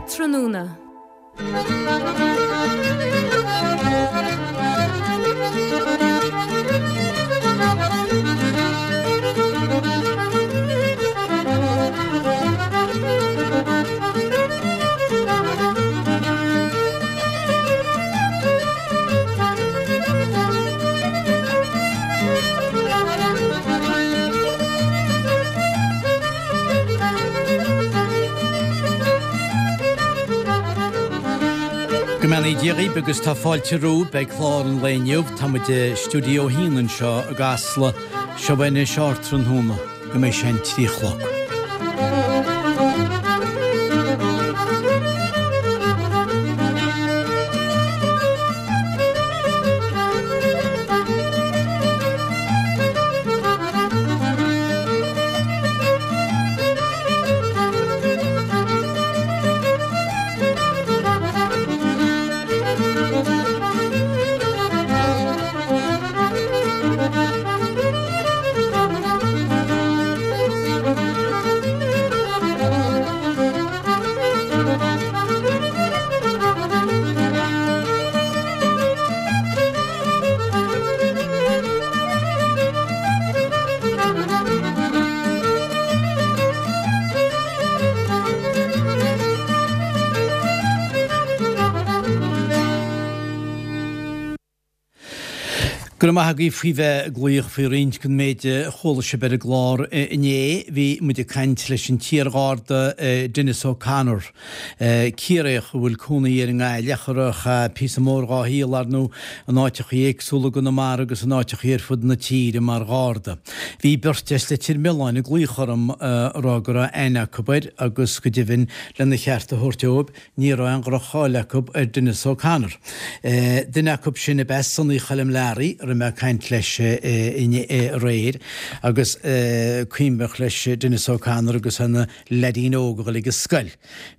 Tráthnóna. Go mbeannaí Dia dhaoibh agus tá fáilte romhaibh ag clár an lae inniu. Tá muid i Stiúideo 1 anseo i gCasla. Seo anois ardtráthnóna go mbeidh sé an 3 a chlog. Go raibh maith agaibh faoi bheith ag glaoch faoi roinnt den méid a chuala sibh ar an gclár inné. Bhí muid ag caint leis an t-iarGharda Denis O'Connor. Ciarraíoch a bhfuil cónaí air i nGaillimh ach a chaith píosa mór dhá shaol, ar ndóigh, in áiteachaí éagsúla i gConamara agus in áiteachaí ar fud na tíre mar Gharda. Bhí beirt as Leitir Mealláin ag glaoch orm a rá go raibh aithne acu air agus go deimhin lena cheart a thabhairt dóibh ní raibh aon dhroch-cháil acu ar Denis O'Connor. Duine acu sin ab ea Sonny Choilm Learaí a raibh mé ag caint leis aréir agus cuimhneach leis Denis O'Connor agus é ina leaidín óg a dhul ag an scoil.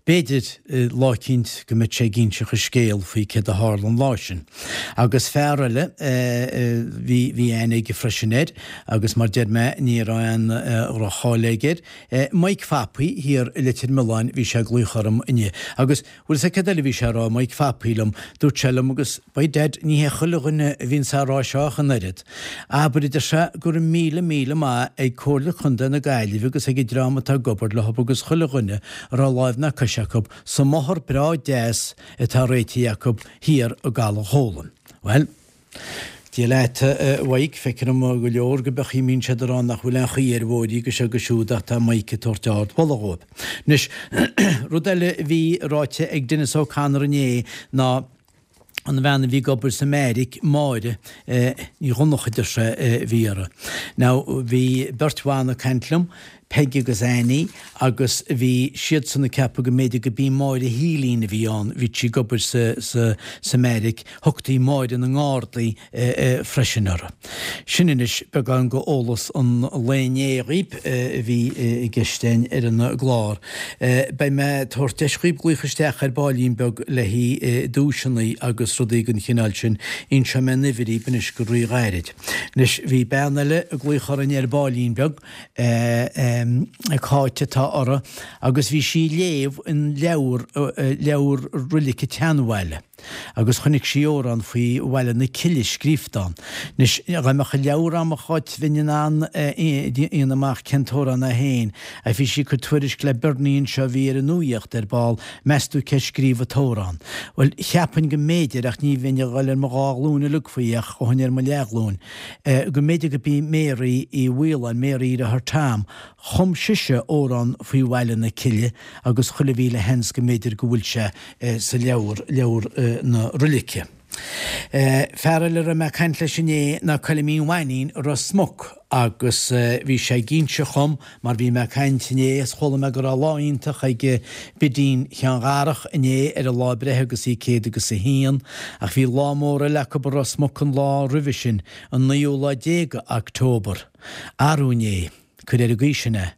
B'fhéidir lá eicínt go mbeidh sé ag inseacht a scéal faoi céard a tharla an lá sin. Agus fear eile, bhí, bhí aithne aige freisin air agus mar deir mé ní raibh aon dhroch-cháil aige air, Mike Phapaí thiar i Leitir Mealláin, bhí sé ag glaoch orm inniu agus Bhfuil 'fhios a'd céard eile a bhí sé a rá, Mike Phapaí liom, dúirt sé liom agus by dad ní hé chuile dhuine a bhíonns á rá seo ach an oiread. Abair, a deir sé, go raibh míle míle maith ag Comhairle Contae na Gaillimhe agus ag an dream atá ag obair leo agus chuile dhuine a raibh láimh ná cois acu sa mbóthar breá deas atá réitithe acu thiar i gCaladh Chólann. Bhuel. Dia leat, a Mhaidhc, feictear dom go leor go beachaí mbíonn siad ag rá nach bhfuil aon chaoi ar bhóithrí agus seo agus siúd ach tá Mike ag tabhairt ard mholadh dhóibh. Anois, rud eile a bhí ráite ag Denis O'Connor inné ná an bhean a bhí ag obair sa mbeairic, Máire Ní Dhonncha a deir sé a bhí uirthi. Now, bhí beirt bhan ag caint liom, Peig agus Annie agus bhí siadsan ag ceapadh go mb'fhéidir go b'í Máire Shílín a bhí ann, bhí sí ag obair sa, sa, sa mbeairic, thugtaí Máire na nGardaí freisin uirthi. Sin anois beagán go eolas an lae inné dhaoib a bhí i gceist againn ar an gclár. Beidh mé ag tabhairt deis dhaoib glaoch isteach ar baillín beag le haghaidh duaiseanna agus rudaí den chineál sin. Inseoidh mé an uimhir dhaoib anois go rí-ghairid. Anois bhí bean eile ag glaoch orainn ar baillín beag. Cáit atá uirthi agus bhí sí ag léamh an leabhar, leabhar roilice tSeanbhaile agus chonaic sí amhrán faoi Bhaile na Cille scríobhta ann. Anois, dá mbeadh an leabhar a'm a Cháit bheinn in ann déanamh amach cén t-amhrán é féin ach bhí sí ag cur tuairisc le Bernie anseo a bhí ar an nuaíocht ar ball, meas tú cé scríobh an t-amhrán? Bhuel, cheapfainn go mb'fhéidir ach ní bheinn ag dhul ar mo dhá ghlúin uilig faoi ach ghabhfainn ar mo leathghlúin. go mb'fhéidir go b'í Mary Uí Mhaoláin, Mary dheartháir Tom, chum sise amhrán faoi Bhaile na Cille agus chuile mhíle sheans go mb'fhéidir go bhfuil sé sa leabhar, leabhar na roilice. Fear eile a raibh mé ag caint leis inné ná Coilimín Mhainín i Ros Muc agus bhí sé ag inse dhom Mar bhí mé ag caint inné is chuala mé go raibh lá iontach ag Bidín Sheáin Dharach inné ar a lá breithe agus í céad agus a haon, ach bhí lá mór eile acu i Ros Muc an lá roimhe sin, an naoú lá déag de October. Arú inné, cuir ar an gcaoi sin é,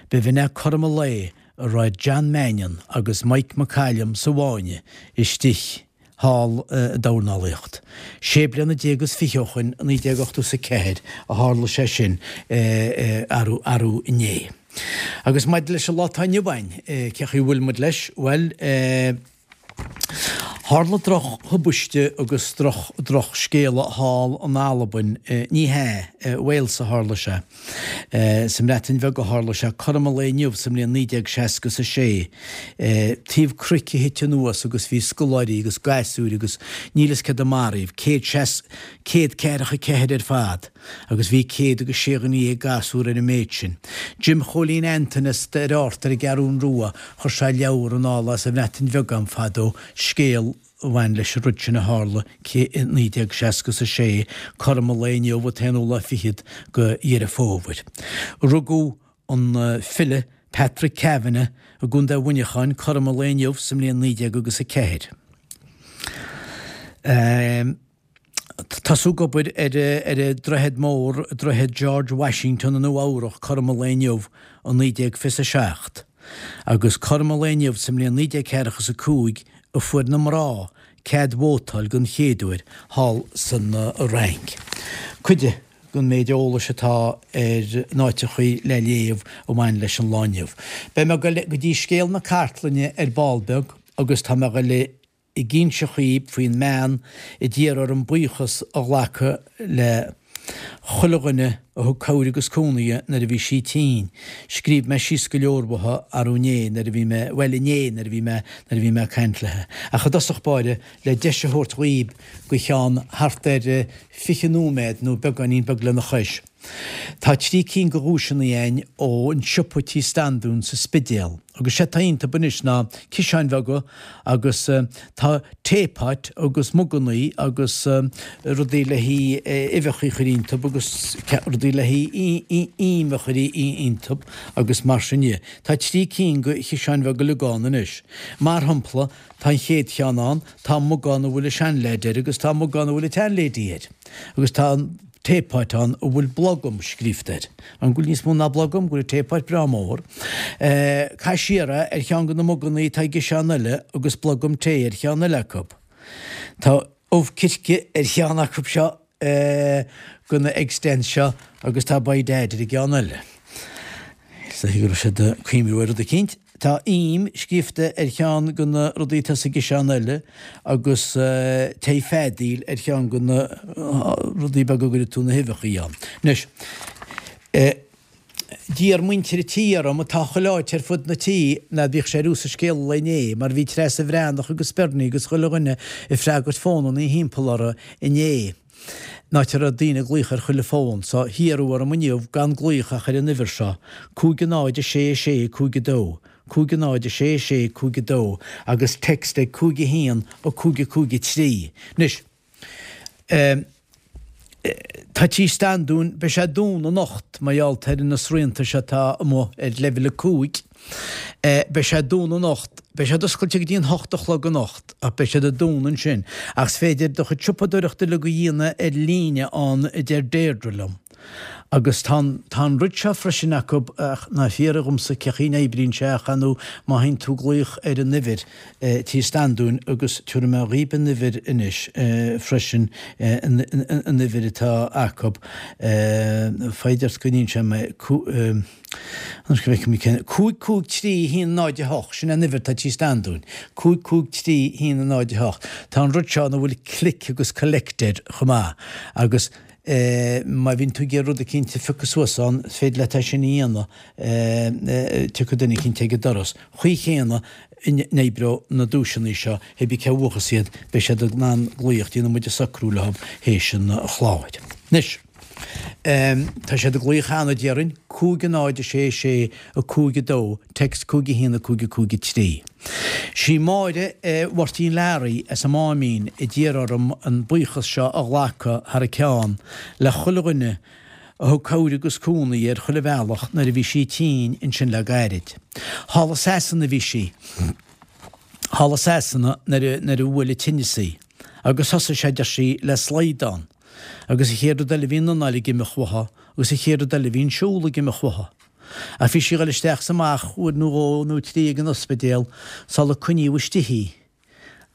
b'in é cothrom an lae a raibh John Mannion agus Mike McCallum sa bhfáinne istigh. thall i dornálaíocht. Sé bliana déag is fiche ó shoin, 1984, a tharla sé sin, arú, arú inné. Agus maidir leis an lá atá inniu ann, cé chaoi a bhfuil muid leis? Bhuel, tharla droch-thubaiste agus droch-scéala thall in Albain, ní hea, i Wales a tharla sé. Sa mBreatain Bheag a tharla sé, cothrom an lae inniu sa mbliain 1966. Taobh cnoic a thit anuas agus bhí scoláirí agus gasúir agus níl fhios céard a maraíodh, 144 ar fad. agus bhí 106 dhuine gasúr ar an méid sin. Jim Chóilín Antain as Doire Ard ar an gCeathrún Rua, chuir sé leabhar anall as an Bhreatain Bheag a'm fadó, scéal a bhain leis an rud sin a tharla i 1966, cothrom an lae inniu, an t-aonú lá fichead go Dheireadh Fómhair. Rugadh an file Patrick Kavanagh i gContae Mhuineacháin cothrom an lae inniu sa mbliain 19 agus 4. Tosú ag obair ar an droichead mór, Droichead George Washington i Nua Eabhrach, cothrom an lae inniu i 1927. Agus cothrom an lae inniu sa mbliain 1945 a fuair na mná cead vótáil den chéad uair thall san Fhrainc. Cuid den méid eolais atá ar na háiteachaí le léamh a bhain leis an lá inniu. Beidh mé ag goil go dtí scéal na cartlainne ar ball beag agus tá mé ag goil ag inse dhaoib faoin mbean a d'iarr orm buíochas a ghlacadh le chuile dhuine a thug cabhair agus cúnamh di nuair a bhí sí tinn. Scríobh mé síos go leor uathu arú inné nuair a bhí mé, bhuel inné nuair a bhí mé, nuair a bhí mé ag caint léi. Ach i dtosach báire, le deis a thabhairt dhaoib go cheann thart ar 20 nóiméad nó beagáinín beag lena chois. Tá trí cinn de dhuaiseanna a'inn ón siopa Tí Standún sa Spidéal agus sé atá iontub anois ná ciseáin bheaga agus tá teapot agus mugannaí agus rudaí le haghaidh uibheacha a chur iontub agus rudaí le haghaidh im a chur iontub agus mar sin dhe. Tá trí cinn de chiseáin bheaga uilig ann anois. Mar shampla tá an chéad cheann ann, tá mug ann a bhfuil an seanleaid air agus tá mug ann a bhfuil an tseanlady air agus tá an teapot ann a bhfuil blogam scríofa air. An bhfuil níos mó ná blogam? Go bhfuil an teapot breá mór. Caith siar é ar cheann de na mugannaí atá i gciseán eile agus blogam tae ar cheann eile acu. Tá ubh circe ar cheann acu seo de na egg stands seo agus tá by dad ar an gceann eile. Is dóiche go raibh siad ag cuimhniú ar rud eicínt. Tá im scríofa ar cheann de na rudaí atá sa gciseán eile agus tae feadaíl ar cheann de na rudaí beaga a gcuireann tú na huibheachaí ann. Anois, d'iarr muintir an tí orm, atá chuile áit ar fud na tí, ná bíodh sé ar sa scéal an lae inné, mar bhí Treasa Bhreathnach agus Bernie agus chuile dhuine ag freagairt fónannaí thimpeall orthu inné. An áit a raibh daoine ag glaoch ar chuile fón, so hiarradh orm inniu gan glaoch ach ar an uimhir seo, 5 0 6 6 5 2, 5 0 6 6 5 2, agus text ag 5 1 5 5 3. Anois, eh, tá Tí Standún, beidh sé dúnta anocht mar gheall ar na srianta seo atá amuigh ar leibhéal 5. Beidh sé dúnta anocht. Beidh siad oscailte go dtí an hocht a chlog anocht, ach beidh siad ag dúnadh ansin. Ach is féidir do chuid siopadóireachta uilig a dhéanamh ar líne ann, a deir Deirdre liom. Agus tá an, tá an rud seo freisin acu, ach ná fiafraigh dhomsa cé chaoi a n-oibríonn sé ach ar ndóigh má théann tú ag glaoch ar an uimhir, Tí Standúin, agus tabharfaidh mé dhaoib an uimhir anois freisin, an uimhir atá acu, foighid ort go n-inseoidh mé, Anois go bhfeicfidh mé cén. 5 5 3 1 0 8, sin an uimhir atá Tí Standúin. 5 5 3 1 0 8. Tá an rud seo ina bhfuil click agus collect air chomh maith agus má bhíonn tú ag iarraidh rud eicínt a phiocadh suas ann, is féidir leat é sin a dhéanamh, tiocfaidh duine eicínt ag an doras. Chaoi chéanna a n-oibreoidh na duaiseanna seo, hé bí cé a bhuafas iad, beidh siad in ann glaoch, déanfaidh muid an socrú leo théis an chláir. Anois. Tá siad ag glaoch cheana, déarfainn, 5 0 6 6 5 2, text 5 1 5 5 3. Sí Máire Mháirtín Learaí as an Máimín a d'iarr orm an buíochas seo a ghlacadh thar a ceann le chuile dhuine a thug cabhair agus cúnamh di ar chuile bhealach nuair a bhí sí tinn ansin le gairid. Thall i Sasana a bhí sí. Thall i Sasana nuair a bhuail an tinneas í. Agus thosaigh sé, deir sí, le slaghdán. Agus an chéad rud eile bhí an anáil ag imeacht uaithi, agus an chéad rud eile bhí an siúl ag imeacht uaithi. Ach bhí sí ag dul isteach is amach uair nó dhó nó trí ag an ospidéal sula coinníodh istigh í,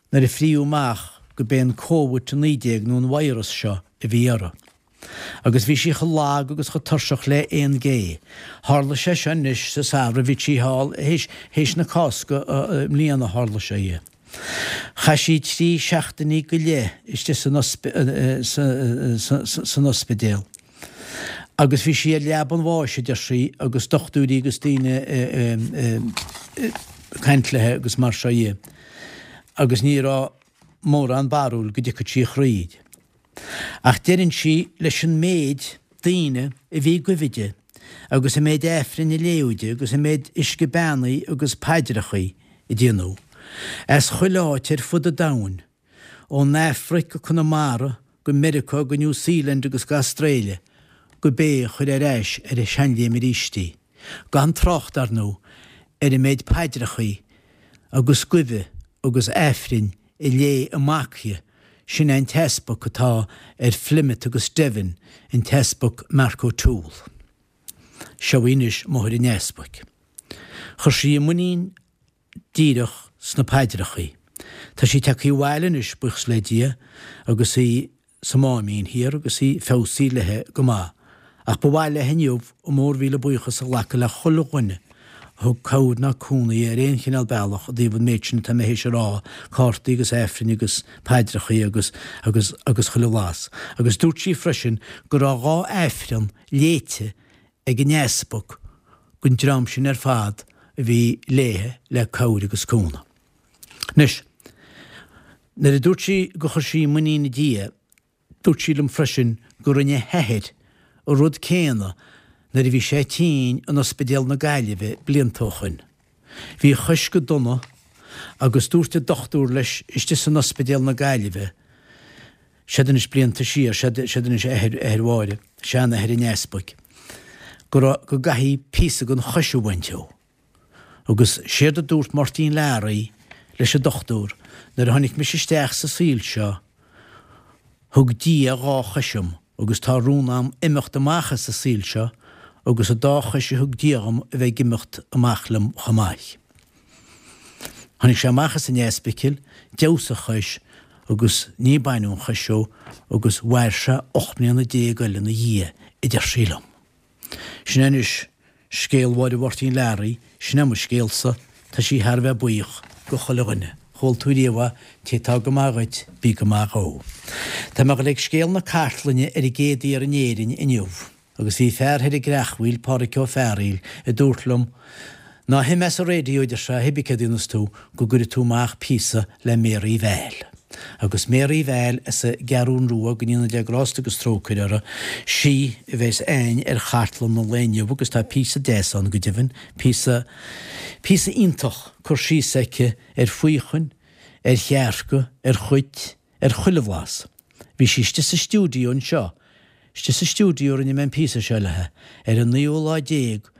nuair a fríodh amach go b'é an Covid 19 nó an virus seo a bhí uirthi. Agus bhí sí chomh lag agus chomh tuirseach le aon ghé. Tharla sé seo anois sa samhradh, bhí sí thall théis, théis na Cásca i mbliana a tharla sé dhi. Chaith sí 3 seachtainí go leith istigh san san ospidéal. Agus bhí sí ar leaba an bháis, a deir sí, agus dochtúirí agus daoine ag caint léi agus mar seo dhe. Agus ní raibh mórán barúil go dtiocfadh sí thríd. Ach deireann sí leis an méid daoine a bhí ag guibhe di, agus an méid Aifrinn a léadh di, agus an méid uisce beannaithe agus paidreachaí a déanadh, as chuile áit ar fud an domhain, ón Afraic go Conamara, go Meiriceá, go New Zealand agus go Astráile, go b'é a chuir ar ais ar a seanléim arís í. Gan trácht, ar ndóigh, ar an méid paidreachaí agus guibhe agus Aifrinn a léigh a mac di, sin é an t-easpag atá ar Phlymouth agus Devon, an tEaspag Mark O'Toole. Seo í anois máthair an easpaig. Chuir sí a muinín díreach sna paidreachaí. Tá sí tagtha abhaile anois, buíochas le Dia, agus í sa Máimín Thiar agus í feabhsaithe léi go maith. Ach ba mhaith léi inniu a mór-mhíle buíochas a ghlacadh le chuile dhuine a thug cabhair ná cúnamh di ar aon chineál bealach i dtaobh an méid sin atá mé théis a rá, cártaí agus Aifrinn agus paidreachaí agus, agus, agus chuile bhlas. Agus dúirt sí freisin go raibh 2 Aifreann léite ag an easpag don dream sin ar fad a bhí léithe le cabhair agus cúnamh. Anois, nuair a dúirt sí gur chuir sí muinín i Dia, dúirt sí liom freisin go rinne a hathair an rud céanna nuair a bhí sé tinn in Ospidéal na Gaillimhe blianta ó shoin. Bhí a chois go dona agus dúirt an dochtúir leis istigh san Ospidéal na Gaillimhe, Siad anois blianta siar, siad anois athair, athair Mháire, seanathair an easpaig, go raibh, go gcaithfí píosa den chois a bhaint dhó. Agus séard a dúirt Máirtín Learaí leis an dochtúir, nuair a tháinig mise isteach sa saol seo, thug Dia 2 chois dhom agus tá rún a'm imeacht amach as an saol seo agus an dá chois a thug Dia dhom a bheith ag imeacht amach liom chomh maith. Tháinig sé amach as an ospidéal, d'fheabhsaigh a chois agus ní baineadh an chois dhó agus mhair sé 18 mbliana eile ina dhiaidh, a deir sí liom. Sin é anois scéal Mháire Mháirtín Learaí, sin é mo scéalsa, tá sí thar a bheith buíoch go chuile dhuine. Chuala tú riamh é, té atá go maith dhuit, bí go maith dhó. Tá mé ag dul ag scéal na cartlainne ar an gcéad fhear in Éirinn inniu. Agus bhí fear thoir i gCreachmhaoil, Pádhraic Ó Fearghaíl, a dúirt liom, Ná himigh as an raidió, a deir sé, hibí céard a dhéanfas tú, go gcuirfidh tú amach píosa le Mary Val. Agus Mary Val as an gCeathrún Rua, go ndéana Dia grásta agus trócaire uirthi, sí a bheas a'inn ar chartlann an lae inniu agus tá píosa deas ann go deimhin, píosa, píosa iontach cur síos aici ar faochain, ar chearca, ar chait, ar chuile bhlas. Bhí sí istigh sa stiúideo anseo, istigh sa stiúideo a rinne mé an píosa seo léi, ar an naoú lá déag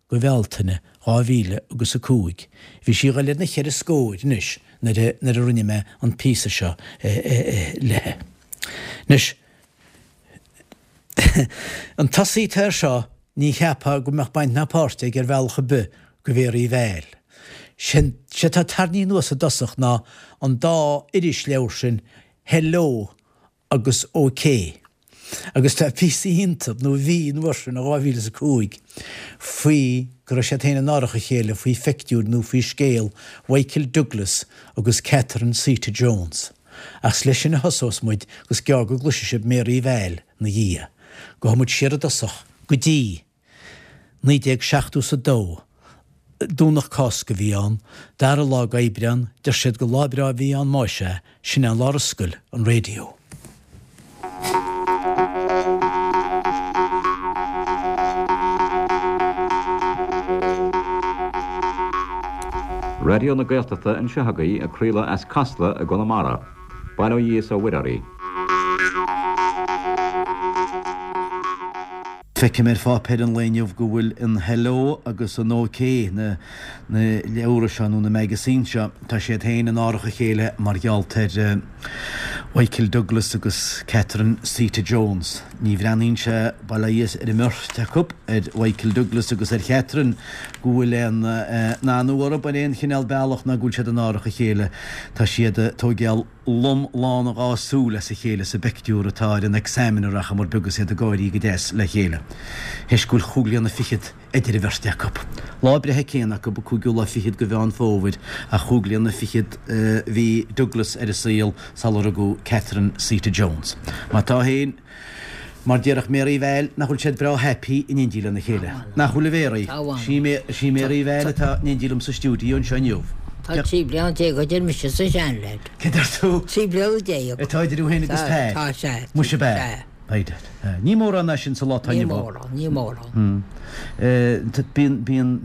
de Bhealtaine, 2000 agus 5. Bhí sí ag dul ar na cheithre scóir anois nuair a, nuair a rinne mé an píosa seo léi. Anois, an tosaí atá air seo, ní cheapfá go mbeadh baint ná páirt aige ar bhealach ar bith go Mhéaraí Val. Sé atá tarraingthe anuas i dtosach ná an dá irisleabhar sin Hello agus OK. Agus tá píosa iontu, nó bhí an uair sin, i 2005, faoi go raibh siad féin in árach a chéile faoi phictiúr nó faoi scéal Mhichael Douglas agus Catherine Zeta Jones. Ach is leis sin a thosós muid agus gearr go gcloisfidh sibh Mary Val 'na dhiaidh. Gabhfaidh muid siar i dtosach go dtí. 1972, Domhnach Cásca a bhí ann, dara lá d'Aibreán, deir siad gur lá breá a bhí ann más ea, sin é an lá ar oscail an raidió. Raidió na Gaeltachta anseo agaibh ag craoladh as Casla i gConamara. Bail ó Dhia is ó Mhuire oraibh. Feicim ar pháipéar an lae inniu go bhfuil an Hello agus an OK, na leabhra seo nó na magazines seo, tá siad féin in árach a chéile mar gheall ar Mhichael Douglas agus Catherine Zeta Jones. Ní bhreathnaíonn sé, bail ó Dhia ar an mbeirt acu, ar Mhichael Douglas agus ar Chatherine go bhfuil aon anú orthu ar aon chineál bealach ná go bhfuil siad in árach a chéile. Tá siad ag tóigeáil lom lán a dhá súil as a chéile sa bpeictiúr atá ar an Examiner ach mar beag is iad ag gáirí go deas le chéile. Théis go bhfuil chúig bliana fichead idir an bheirt acu. Lá breithe céanna acu, an cúigiú lá fichead de Mheán Fómhair, ach chúig bliana fichead a bhí Douglas ar an saol sular rugadh Catherine Zeta Jones. Má tá féin. Mar déarfadh Mary Val nach bhfuil siad breá happy in éindí lena chéile. Nach bhfuil a Mhéaraí? Sí Mary Val atá in éindí liom sa stiúideo anseo inniu. Tá 13 bliana idir mise is an seanleaid. Cé deir tú? 13 bliana. Atá idir thú féin agus Pat? Tá, sea. Muise ab ea? By dad. Ní mórán é sin sa lá atá inniu ann. Ní mórán, ní mórán. Bíonn, bíonn.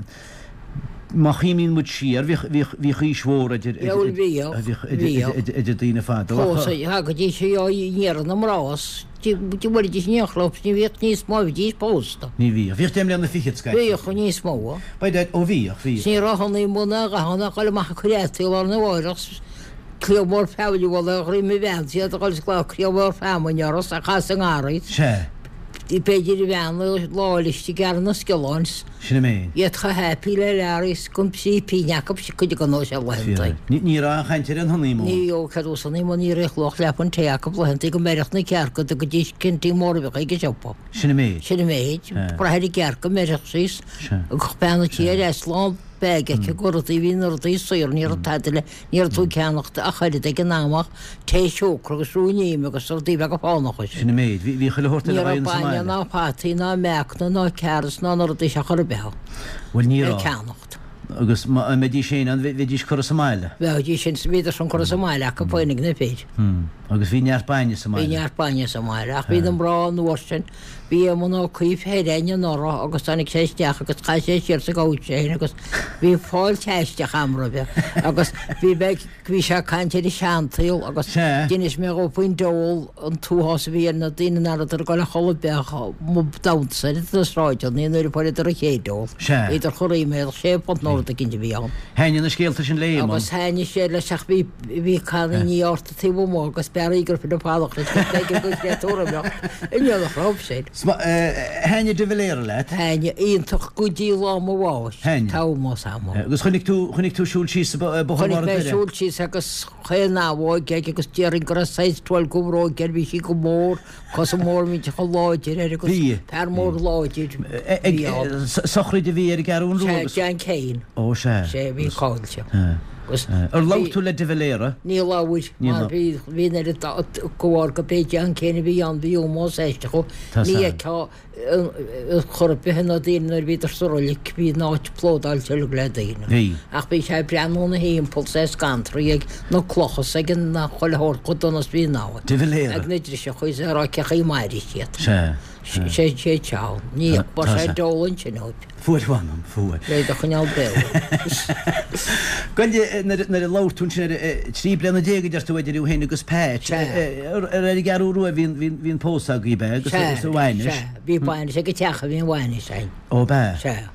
Má chuimhníonn muid siar, bhíodh, bhíodh, bhíodh aois mhór idir, idir, bhíodh, bhíodh idir, idir, idir daoine fadó ach. Fós, thagaidís i ndiaidh na mná 's bhfuilidís in aon chlub 's ní bhíodh níos mó, bhídís pósta. Ní bhíodh. Bhíodh deich mbliana fichead scaití. Bhíodh níos mó. By dad, ó bhíodh, bhíodh. 'S ní raibh honeymoon ná a dhath ann ach dul amach ag cur fhataí lá arna mháireach 's cliabh mór feamainne a bhualadh ar dhroim a bhean 's iad a dhul 's glaoch cliabh mór feamainne orthu 's a chasadh i ngarraí. Sea. B'fhéidir a bhean lá eile ag gearradh na sciolláin 's. Sin an méid. Iad chomh happy le Larry 's gan trí pingin acu cuid acu nó sé laethanta. Ní raibh aon chaint ar an honeymoon. Ní raibh cead os honeymoon ní raibh luach leathphunt tae acu laethanta go mbeireadh na cearca dtugaidís cinntí móra bheadh ag an siopa. Sin an méid. Sin an méid. Brath ar an gcearc go mbeireadh sí 's bean an tí ar ais lán bag aici go rudaí bhí na rudaí saor ní raibh tada le Ní raibh tú ag ceannacht ach oiread ag an am ach tae siúcra agus ruainne ime agus rudaí beaga fánacha. Sin an méid. Bhí chuile shórt eile againn sa mbaile. Ní raibh bainne ná fataí ná meacanna ná carrots ná na rudaí seo chor ar bith ann. Bhuel ní le raibh. ceannacht. Agus má mbeidís féin ann, bheidís curtha sa mbaile. Bheidís sin, bhíodar sin curtha sa mbaile acu féin ag na fir. Agus bhí neart bainne sa mbaile. Bhí neart bainne sa mbaile ach bhí na mná an uair sin, Bhí Éamonn Ó Cuív thoir againn anuraidh agus tháinig sé isteach agus chaith sé siar sa gcouch é féin agus bhí fáilte aisteach a'm roimhe agus bhí mé bhí sé ag caint ar an seansaol agus d'inis mé dhó faoin diabhal an t-uathás a bhí ar na daoine nach rabhadar ag dul a chodladh bheadh mob damhsa ar na sráideanna nuair a fuaireadar an chéad ól. Bhíodar chomh ríméadach, sé phunt nó rud eicínt a bhí ann. Thaitnigh na scéalta sin le Éamonn. Agus thaitnigh sé leis ach bhí bhí cannaí ort taobh amuigh agus b'fhearr í gur fine fadach leis go b'fhéidir go gcreatúr imeacht i ndiaidh raibh sin. Thaitnigh de Valera leat? Thaitnigh, iontach go dtí lá mo bháis, Thaitnigh. Tomás a'm. Agus chonaic tú, chonaic tú siúl síos Bóthar Chonaic Bharr mé Doire? siúl síos agus chaon abhóg aige agus déarfainn go raibh size 12 go bhróig air, bhí sí go mór, cosa mór millteach láidir air agus Bhí. fear mór láidir Ag bhí ann. sochraid a bhí ar an gCeathrú Rua Sea, agus. John Kane. Ó sea. Sea, bhí cáilte. Agus Ar labhair tú le de Valera? Ní labhair, mar bhí bhí an oiread de bharr go b'é John Kane a bhí ann, bhí ómós aisteach dhó. Tá Ní san. fheicfeá chor ar bith na daoine nuair a bhíodar sa roilig, bhí an áit plódáilte uilig le daoine. Bhí. Ach bhí sé ag breathnú ina thimpeall 's é ag scantraí ag na clocha 's ag an chuile shórt chomh dona is bhí an áit. De Valera. Ag na driseacha is é ag rá cé chaoi mairfidh siad. Sea. Sea. Sé sé teann. Ní Tá fuair sé san. deol ansin uaidh. Fuair mh'anam, fuair. Le do choinneáil beo. Gabh i leith, nuair a labhair tú ansin ar 13 bliana a deir tú idir thú féin agus Pat, ar ar an gCeathrú Rua a bhí an pósadh agaibh, ab ea, agus an bhainis? Sea, bhí bainis ag an teach a bhí an bhainis againn. Ó, ab ea? Sea.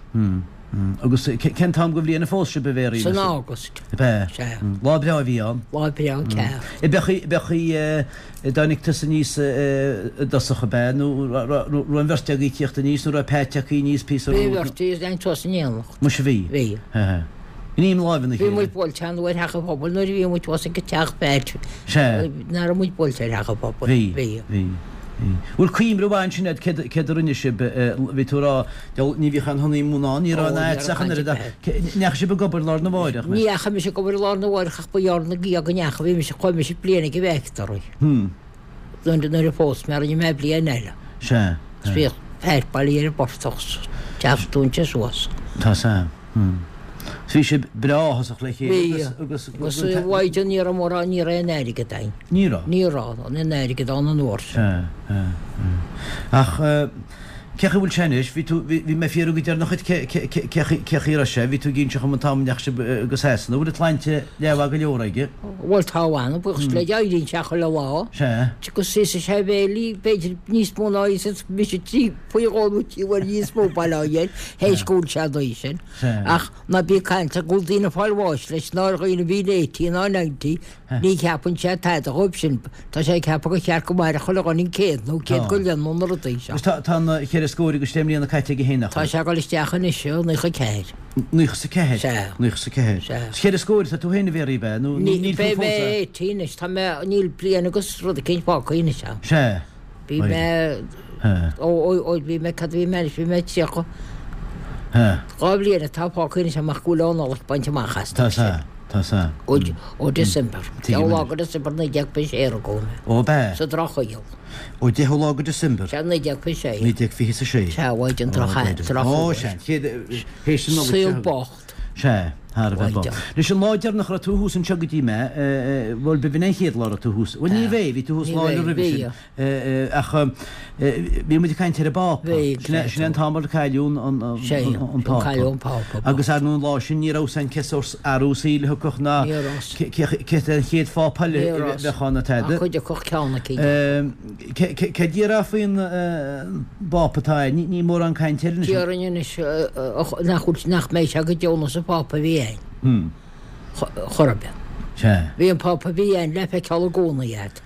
Agus cén t-am de bhliain a phós sibh, a Mhéaraí? San August. Ab ea? Sea. Lá breá a bhí ann. Lá breá ceart. Ab é a dtáinig tusa aníos i dtosach, ab ea? Nó raibh an bheirt agaibh ag tíocht aníos nó raibh Pat tagtha aníos píosa Bhí an romhat? bheirt, bhí tháinig tusa in éineacht. Muise bhí. Bhí. Ghním láimhe na Bhí chéile. muid buailte an uair theach an phobail nuair a bhí muid thuas ag teach Phat. Sea. Nach raibh muid buailte ar theach an phobail. Bhí. Bhí. Bhí. Bhí. Bhfuil cuimhne mhaith ansin agat céard, céard a rinne sibh, bhí tú ag rá, deabhal, ní bhíodh aon honeymoon ann, ní raibh Ó, aon ní áit raibh ach an caint oiread ar ach, bith. ndeachaigh sibh ag obair lá arna mháireach? Ní dheachaigh mise ag obair lá arna mháireach ach ba ghearr ina dhiaidh go ndeachaigh, bhí mise, chuaigh mise bliain ag an bhfactory. Nuair, nuair a phós mé rinne mé bliain eile. Sea. Agus bhíodh Pat bailithe ar an bportach 's teach dúinte suas. Tá san. Bhí sibh breá áthasach le chéile Bhí. agus, Agus a mhaighdean ní raibh mórán, ní raibh aon airgead againn. Ní raibh? Ní raibh aon airgead ann an uair sin. Sea, sea, sea. Ach. Cé chaoi bhfuil sé anois? Bhí tú, bhí, bhí mé ag fiafraí go deireanach dhuit cé, cé, cé, cé chaoi, cé chaoi a raibh sé? Bhí tú ag inse dhom an t-am a ndeachaigh sibh go Sasana. Bhfuil an tsláinte leathmhaith go leor aige? Bhuel tá a mh'anam, buíochas le Dia, éiríonn sé chuile lá. Sea. Agus íosann sé a bhéilí, b'fhéidir níos mó ná íosann mise trí, faoi dhó nó trí uair níos mó, bail ó Dhia air, théis go bhfuil sé an dóigh sin. Sea. Ach ná bí ag caint go bhfuil daoine ag fáil bháis leis, ná ar dhaoine a bhíonn 80 ná 90, Ní cheapann sé tada dhóibh sin. Tá sé ag ceapadh gur cheart go mairfeadh chuile dhuine an céad nó céad go leith nó na rudaí seo. Agus tá na cheithre scór agus deich mbliana caite aige féin, nach Tá bhfuil? sé ag dul isteach anois i 94. 94? Sea. 94. Sea. Is cheithre scór atá tú féin a Mhéaraí, ab ea? Nó níl tú Beidh fós mé a. 80 anois. Tá mé, níl bliain agus rud eicínt fágtha anois a'm. Sea. Bhí mé, ó, ó, ó, bhí mé, cad a bhí mé anois, bhí mé 30. Dhá bhliain atá fágtha anois amach go bhfuil an Nollaig bainte amach as. Tá sea, tá sea. Ó, ó December. Deichiú lá go December 1926 a rugadh mé. Ó, ab ea? Sa Drochshaol. Ó deichiú lá go December. Sea, 1926. 1926. Sea, uaidh an droch, droch. Ó, sea, chéad, théis an Nollaig seo. Saol bocht. Sea, thar a bheith bocht. Anois an lá deireanach a raibh tú thuas anseo go dtí mé, bhuel, b'in an chéad lá a raibh tú thuas. Bhuel, ní bheidh, bhí tú thuas lá eile roimhe sin. Ach bhí muid ag caint ar an bPápa. Sin é an t-am ar cailleadh an Pápa. Agus ar ndóigh an lá sin ní raibh a fhios againn cé sórt athrú saoil a thiocfadh ná cé an chéad Phápa eile a bheadh ann ná tada. Céard a déarfá faoin bPápa atá ann? Ní mórán cainte air anois. Déarfainn anois nach bhfuil, nach mbeidh sé go deo nós an Phápa a bhí ann. Chor ar bith. Bhí an Pápa a bhí ann le feiceáil i gcónaí a'd.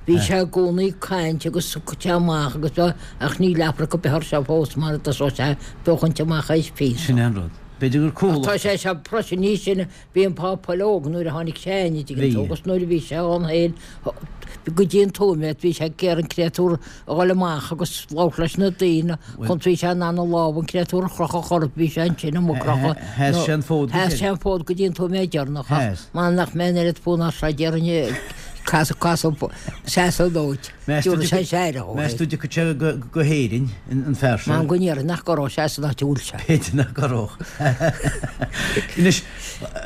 Bhí sé i gcónaí ag caint agus ag cur amach agus bheith, ach níl afraic ar bith air seo fós mar a dtosóidh sé ag féachaint amach théis píosa. Sin é an rud. B'fhéidir gur cúlach. Ach tá sé seo freisin níos sine, bhí an Pápa eile óg nuair a tháinig sé in, an dtuigeann tú, agus nuair a bhí sé ann féin, go dtí an tóiméad, bhí sé ag iarraidh an créatúr a dhul amach agus labhairt leis na daoine, chun bhí sé in ann a lámh an créatúr a chrochadh chor ar bith, bhí sé ansin amuigh crochadh. Sheas sé an fód go Sheas sé an fód go dtí an tóiméad deireanach ach m'anam nach mbeidh an oiread fonn air seo déarfainn casadh casadh seasamh dóit. Dúirt sé sé air. Meas tú dtiocfaidh sé go hÉirinn, an fear seo? M'anam go ndéarfainn nach gcorródh sé san áit a bhfuil sé. B'fhéidir nach gcorródh. Anois,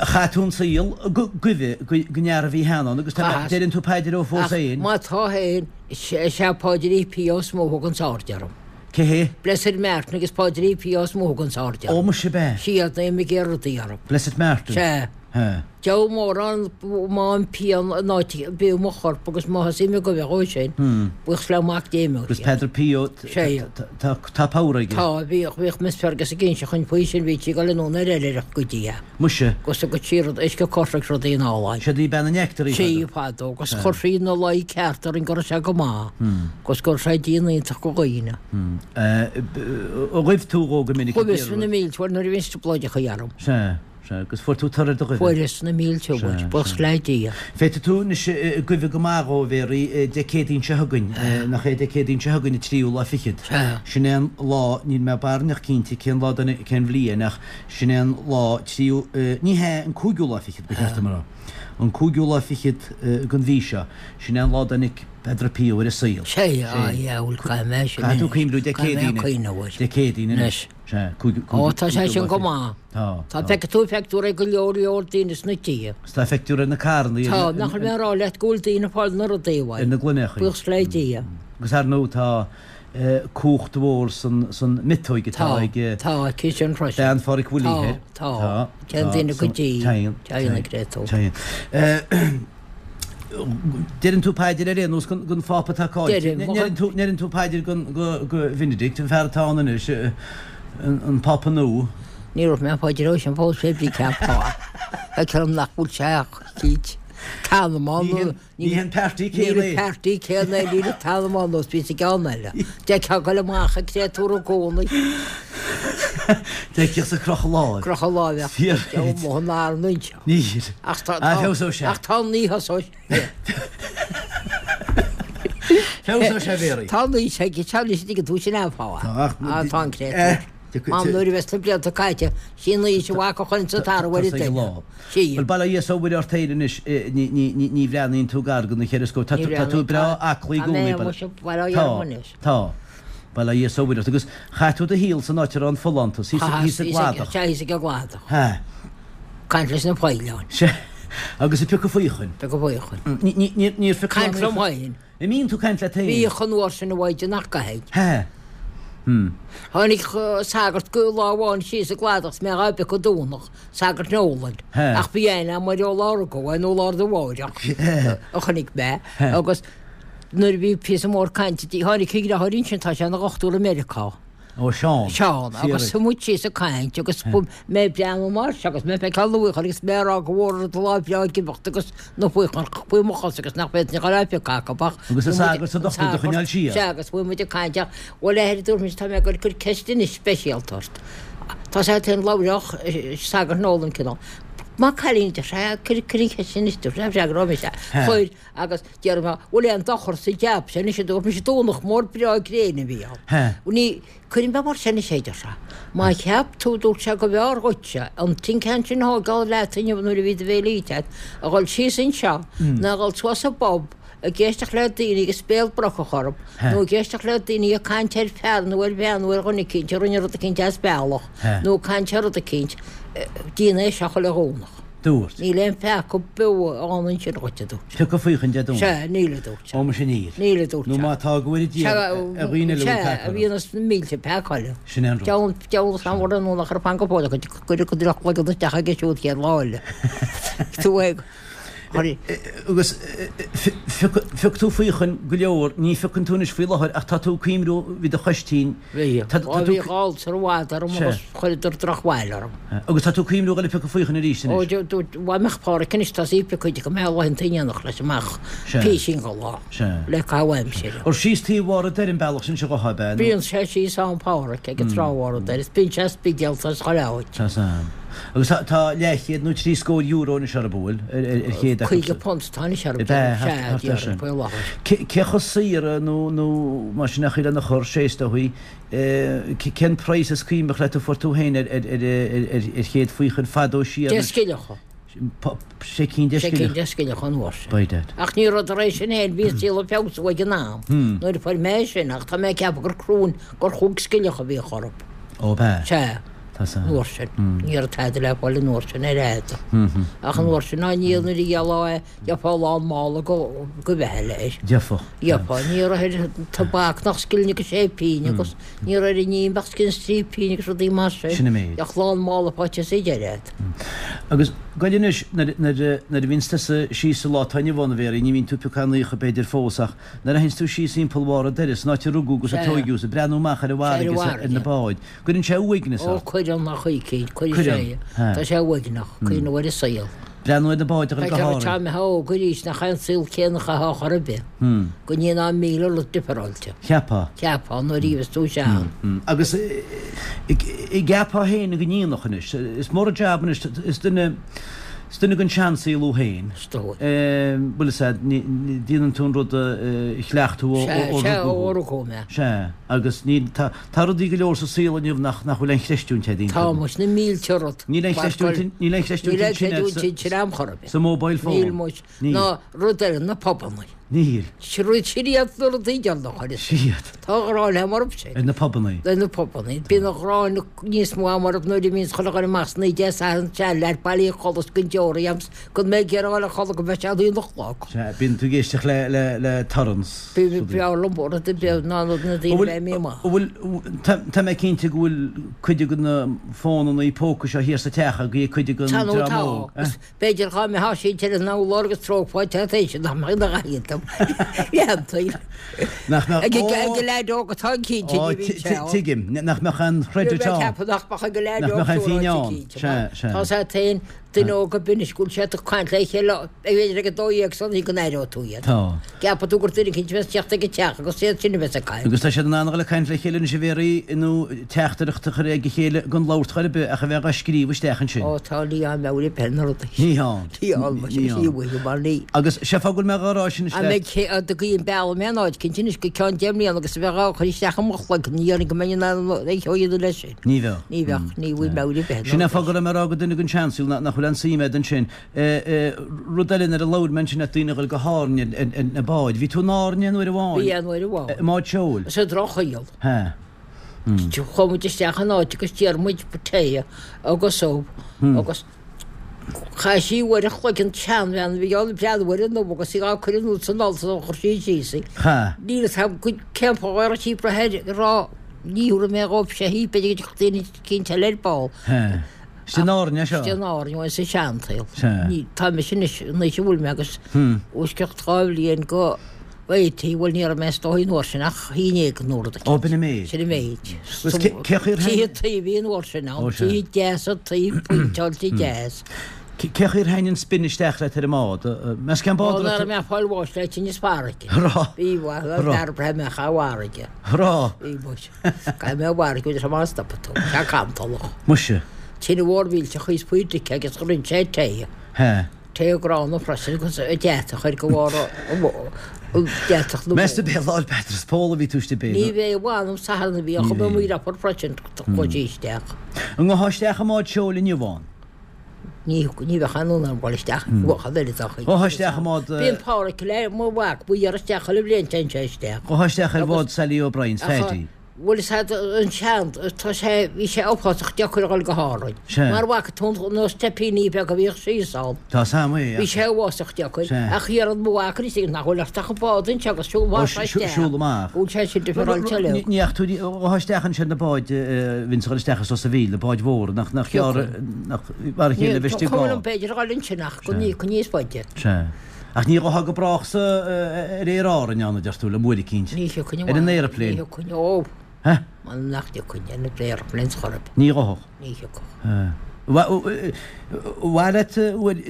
chaith tú an saol ag guibhe don fhear a bhí cheana ann agus deireann tú paidir dó fós féin. Ach má tá féin, is é Páidrí Pio is mó a thuganns aird orm. Cé hé? Blessed Martin agus Páidrí Pio is mó a thuganns aird orm. Ó, muise ab ea? Siad na ag iarraidh rudaí orm. Blessed Martin? Sea. Sea. Deabhal mórán má an pian in áit a bhíodh mo chorp agus má thosaím ag guibhe dhó sin, buíochas le Mac Dé imeoidh Agus Peadar Pio, tá tá power aige. Tá, bhíodh, bhíodh Miss Fergus ag inse chugainn faoi sin, bhí sí ag dul anonn ar oilithreacht go dtí é. Muise. Agus thugadh sí rud, uisce coisricthe rudaí in álainn. Siod í bean an neachtar í Sí, fadó, agus chuir sí ina luí ceart orainn go raibh sé go maith, agus go raibh sé dian iontach go dhaoine. Ar ghuibh tú dhó go minic ag iarraidh? Ghuibheas na mílte uair nuair a bhí an trioblóideacha orm. Sea. Sea, agus fuair tú toradh ar do ghuibhe. Fuaireas na mílte uair, buíochas le Dia. Féadfaidh tú anois guibhe go maith dhó, a Mhéaraí, Dé Céadaoin seo chugainn, nach é Dé Céadaoin seo chugainn an tríú lá fichead. Sea. Sin é an lá, níl mé barainneach cinnte cén lá den, cén bhliain ach sin é an lá tríú, ní hea, an cúigiú lá fichead ba cheart dom a rá. An cúigiú lá fichead den mhí seo, sin é an lá a dtáinig Peadar Pio ar an saol. Sea, á, yeah, bhuel caithfidh mé sin Caithfidh tú cuimhniú Dé Céadaoin, Dé Céadaoin anois. Sea, cúigiú, cúigiú, Ó, tá sé sin go maith. Tá, Tá feicfidh tú feictear ag go leor leor daoine sna tithe. Is tá feictear ar na carranna. Tá, nach bhfuil mé ag rá leat go bhfuil daoine ag fáil na rudaí uaidh. Ar na gloineachaí. Buíochas le Dia. Agus ar ndóigh tá cumhacht mhór san, san miotóig atá ag. Tá, tá, aici sin freisin. Bean Pháraic Willie thoir. Tá, tá. Téann daoine go dtí. Téann. Téann ag réiteach. Téann. Deireann tú paidir ar aon nós don Phápa atá caillte. Deirim. Ndeireann tú paidir go Bheinidict, an fear atá ann anois, an Pápa nua? Ní raibh mé paidir ó sin fós fé bhrí cén fáth. Feictear dom nach bhfuil sé ach cít. T'anam ann. Ní hé an páirtí céanna é. Níl an páirtí céanna é, níl an t-anam ann nós bhí sa gceann eile. D'fheicfeá ag goil amach an créatúr i gcónaí. D'fheicfeá sa crochadh láimh. Crochadh láimhe. Fíor. Deabhal mo an anseo. Níl. Ach tá, Ah, feabhsóidh sé. ach tá ní thosóidh sé. Feabhsóidh sé, a Mhéaraí. Tá ní sé, tá ní sé, tuigeann tú sin an fáth. Tá, ach- Ah, tá an créatúr. Eh, tiocfaidh- Mam, nuair a bheas na blianta caite, sí an aois a bhac a chuireann sa tarbh ar an Tá sé ag duine. lá. Sí. Bhuel, bail ó Dhia is ó Mhuire ort féin anois, ní, ní, ní, ní bhreathnaíonn tú gar do na cheithre scór. Tá Ní tú, tá tú bhreathnaíonn, breá tá- aclaí i tá gcónaí, mé bail- muise, bail ó Dhia Tá, orm anois. tá. Bail ó Dhia is ó Mhuire ort. Agus chaith tú do shaol san áit a raibh an folántas, thíos, Chaitheas, thíos i thíos ag, gCladach. sea, thíos ag an gCladach. Hea. Caint leis na faoileáin. Sea. Agus ag piocadh faochain. Piocadh faochain. Ní, ní, ní, níor phioc Caint liom féin. An mbíonn tú ag caint leat féin? Bhíodh an uair sin a mhaighdean nach gcaithfidh. Hea. Tháinig sagart go lá amháin síos an cladach 's mé dhá bpiocadh Domhnach, sagart Nolan, ach bhí aithne agam air ó lá a rugadh é nó lá arna mháireach a chonaic mé agus nuair a bhí píosa mór cainte di, tháinig a dheartháir ansin, tá sé ina dhochtúir i Meiriceá. Ó Seán. Seán, agus shuigh muid síos ag caint agus mé ag breathnú mar seo agus mé ag feiceáil na bhfaochair agus mé ag rá go bhfuair an lá breá ag imeacht agus na faochair faoi mo chosa agus nach bhféadfainn a dhul á phiocadh acu ach Agus an sagart is an dochtúir do choinneáil siar. Sea, agus bhí muid ag caint ach bhuel a athair a dúirt mise tá mé ag goil ag cur ceist anois speisialta ort. Tá sé féin labhródh sagart Nolan cineál. Maith cailín a deir sé, cuir an cheist anois dúirt sé, freagróidh mise. Chuir agus Déarfaidh mé, bhfuil aon dochar sa jab sin anois a dúirt mise Domhnach mór breá gréine a bhí ann. Ní, cuirfidh mé mar sin anois é, a deir sé. Má cheap tú, dúirt sé, go mb'fhearr dhuitse an tin can sin a thógáil leat inniu nuair a bhí do bhéile ite agat, a dhul síos anseo ná a dhul suas sa bpub ag éisteacht le daoine agus béal brocach orthu nó ag éisteacht le daoine ag caint ar fear nó ar bhean nó ar dhuine eicínt a rinne rud eicínt as bealach nó ag caint ar rud eicínt, déan é seo chuile Dhomhnach. Dúirt. Níl aon pheaca beo ann ansin dhuit, a dúirt sé. Piocadh faochain Dé Domhnaigh. Sea, níl, a dúirt sé. Ó, muise níl. Níl, a dúirt sé. Nó má tá, go bhfóire Dia ar dhaoine eile a bhfuil peaca orthu. Sea, a bhíonn na mílte peaca eile. Sin é an rud. Deabhal, deabhal is an bhfuil nó nach raibh fan go fóill acu, cuireadh go droch-chloigeann isteach aige siúd chéad lá eile. Tú ag. Agus phioc tú faochain go leor, ní phiocann tú anois faoi láthair ach tá tú ag cuimhniú, bhí do chois tinn. Bhí. Ó bhí ulcer i bhfad orm agus chuireadar drochbhail orm. Agus tá tú ag cuimhniú dhul ag piocadh faochain arís anois? Ó dá mbeadh Páraic anois tá sí ag piocadh go mbeadh laethanta in éineacht leis amach písín go lá le caitheamh aimsire. Ar síos taobh Bharr an Doire an bealach sin seo dhotha, ab ea? Bíonn sé síos ann Páraic ag an trá Bharr an Doire is bíonn sé Spidéal is chuile áit. Tá san. Agus tá leathchéad nó 70 euro anois orthu, an bhfuil, ar chéad acu. £50 atá anois orthu, sea, déarfainn, faoi láthair. Cé chomh saor nó nó mar sin a chuir lena chur sé is dóichí, cén praghas is cuimhneach leat a fuair tú féin ar ar chéad faochain fadó siar? Deich scilleacha. Sé cinn deich scilleacha. Sé cinn deich scilleacha an uair sin. By dad. Ach ní raibh tar éis sin féin, bhí an saol ag feabhsú ag an am nuair a fuair mé é sin ach tá mé ag ceapadh gur cruinn gur chúig scilleacha a bhíodh orthu. Ó b'ea. Sea. Tá san. An uair sin. Ní raibh tada le fáil an uair sin ar fhad. Ach an uair sin ná ní nuair a ghealfá é, gheofá lán mála go go bheithe leis. Gheofá. Gheofá. Ní raibh ar tobac nach scilling agus sé pínn agus ní raibh ar an im ach scilling is trí pínn agus rudaí mar sin. Sin an méid. Bheadh lán mála faighte sa deireadh agat. Agus goil anois, nuair nuair a bhíonns tusa síos sa lá atá inniu ann, a Mhéaraí, ní bhíonn tú ag piocadh aon fhaocha b'fhéidir fós ach nuair a théanns tú síos thimpeall Bharr an Doire, san áit a rugadh agus a tóigeadh is ag breathnú amach ar an bhfarraige is ar na báid, Cuireann sé uaigneas ort. Ó, cuireann, a chuicín, cuireann sé. Tá sé uaigneach, cuimhneamh ar an saol. Breathnú ar na báid a dhul go hÁrainn. Tá mé óg arís, nach é an saol céanna a chaithfeá chor ar bith. Go ndéanfá míle rud difreáilte. Cheapfá. Cheapfá, nuair a bhíos tú sean. Agus an gceapfá féin go ndéanfadh anois, is mór an jab anois, is duine, is duine den seansaol thú féin. Is dóigh. Bhuel is ea, déanann tú an rud a chleacht tú ó rugadh thú. Sea, ó rugadh mé. Sea, agus ní, tá, Tá rudaí go leor sa saol inniu nach nach bhfuil aon chreistiúint agat iontu. Tá muis, na mílte rud. Níl aon chreistiúint níl aon chreistiúint Níl aon chreidiúint ansin am chor ar bith. Sa mobile phone. Níl muis. Níl. Ná rud eile, na pubannaí. Níl. Sin iad na rudaí deireanacha. Sin iad. Tá gráin agam orthu sin. Ar na pubannaí. Ar na pubannaí. Bíonn an ghráin níos mó agam orthu nuair a bhíonns chuile dhuine amach sna Dé Sathairn seanleaid bailithe a chodladh 's gan deoraí agam 's Gan mé ag iarraidh a chodladh go mbeidh sé a haon a chlog. Sea, bíonn tú ag éisteacht le, le, le torann 's rudaí. B'fhearr liom rud ar bith ná na daoine a bheith imithe amach. An bhfuil, tá, tá mé cinnte go bhfuil cuid de na fónannaí póca seo thiar sa teach agaibh ag cuid den Tá nó dream tá. óg, eh? Agus b'fhéidir dhá mbeifeá sínte ar an urlár agus treofá teach nach mbeadh ina ghaillimh. Leantaí. Nach mbeadh, Ag ag an leaid óg atá cinnte Ó, ní bhíonn sé ann. tuigim, nach mbeadh aon chreidiúint Bhí mé ann. ag ceapadh nach mbeadh ag an leaid Nach óg mbeadh aon sóráite phínn ann. cinnte. Sea, sea. Tá sé féin Duine óg ab anois go bhfuil siad ag caint le chéile b'fhéidir ag 12 san oíche go n-aireoidh tú iad. Tá. Ceapfaidh tú gur duine eicínt a bheas teacht ag an teach agus iad sin a bheas ag caint. Agus tá siad in ann a dhul ag caint le chéile anois a Mhéaraí nó teachtaireacht a chur ag a chéile gan labhairt chor ar bith ach a bheith dhá scríobh isteach ansin. Ó tá ní ann meabhair ar bith ar na rudaí. Ní ann. Ní ann mar sin Ní ní ann. uaidh mar ní. Agus sé fáth go bhfuil mé dhá rá sin An le. mbeidh cé a dtugaí an bealach mé an áit cinnte anois go ceann deich mbliana agus a bheith dhá chur isteach i mo chloigeann ní dhéarfainn go mbeinn in ann a dhéanamh leis sin. Ní bheadh. Ní bheadh, ní bhfuil meabhair ar bith Sin é fáth go raibh mé ag rá go duine den seansaol nach bhfuil aon suim agat ansin. Rud eile nuair a labhair mé ansin le daoine a dhul go hÁrainn ar na báid. Bhí tú in Árainn aon uair amháin? Bhí aon uair amháin. I mbád seoil? Sa drochshaol. Hea. Chuaigh muid isteach in áit agus d'iarr muid tae agus ubh agus Chaith sí uair a chloig an tseanbhean a bhí ann ag breathnú ar an ubh agus í á cur anuas san oll sula chuir sí síos í. Cha. Níl fhios agam cén fáth a raibh sí ag brath air ag rá. Ní thabharfaidh mé dhóibh sé hí, b'fhéidir go dtiocfadh daoine eicínt eile ar ball. Sea. Istigh in Árainn é seo? Istigh in Árainn, bhuel, sa seansaol. Sea. Ní, tá mise anois, an aois a bhfuil mé agus os cionn 2 bhliain go 80, bhuel ní raibh mé is dóigh an uair sin ach haon éigin nó rud eicínt. Ó, b'in an méid. Sin an méid. Agus cé chaoi ar thaitn. Tithe tuí a bhí an uair sin ann, Ó, sea. tithe deasa tuí, péinteáilte deas. Cé chaoi ar thaitn an spin isteach leat ar an mbád? Meas cén bád Ó, a raibh nuair a tú. mbeadh fáil bháis le tinneas farraige. Raibh. Bhí, bhuel, Raibh. fear breá mbeadh a bhfarraige. Raibh. Bhí, muis. Caithfidh mé a bhfarraige, bhfuil sé mar a stopfaidh tú. Tá cantalach. Muise. Tine mhór mhillteach thíos faoi dtice agus rinne sé tae. Hea. Tae gránna freisin agus deatach ar go bharr an deatach na Meas tú b'é Lá 'le Peadar is Pól a bhí tú istigh b'é? Ní bhé, mh'anam Satharn a bhí ann, chuaigh mé amuigh leofa freisin, chuaigh sí isteach. An ngabhfá isteach i mbád seoil inniu ann? Ní ní bheadh aon fhonn orm dul isteach i bhfad eile dá chuid. Ghabhfá isteach i mbád. Bíonn Páraic le mo mhac, ba iarraidh isteach chuile bhliain téann sé isteach. Ghabhfá isteach ar bhád Sally O'Brien's, Phaddy. Bhuel is ea an sean, tá sé, bhí sé uafásach deacair a dhul go hÁrainn. Sea. Mar bhfaca tú na steipíní beaga a bhíodh síos ann. Tá 's a'm é, Bhí sé uafásach deacair. Sea. Ach iarrann mo mhac anois nach bhfuil ort ach an bád anseo agus siúl Ó, amach isteach. siúl amach. Bhfuil sé sin difreáilte uilig. Ní fhaca tú, ghabhfá isteach ansin na báid, bhíonns ag dul isteach as Ros a' Mhíl, na báid mhóra, nach, nach gearr, nach, mar a chéile a bheith istigh Ní, cuma liom b'fhéidir a dhul ansin ach go ní, go níos faide. Sea. Ach ní ghabhfá go brách sa, ar Aer Árainn ann, a deir tú, le uair eicínt. Ní thiocfainn Ar an aeroplane. Ní thiocfainn, ó. Heh? M'anam nach dtiocfainn ar an aeroplane chor ar bith. Ní ghabhfadh. Ní thiocfadh. Heh. Mhaith leat,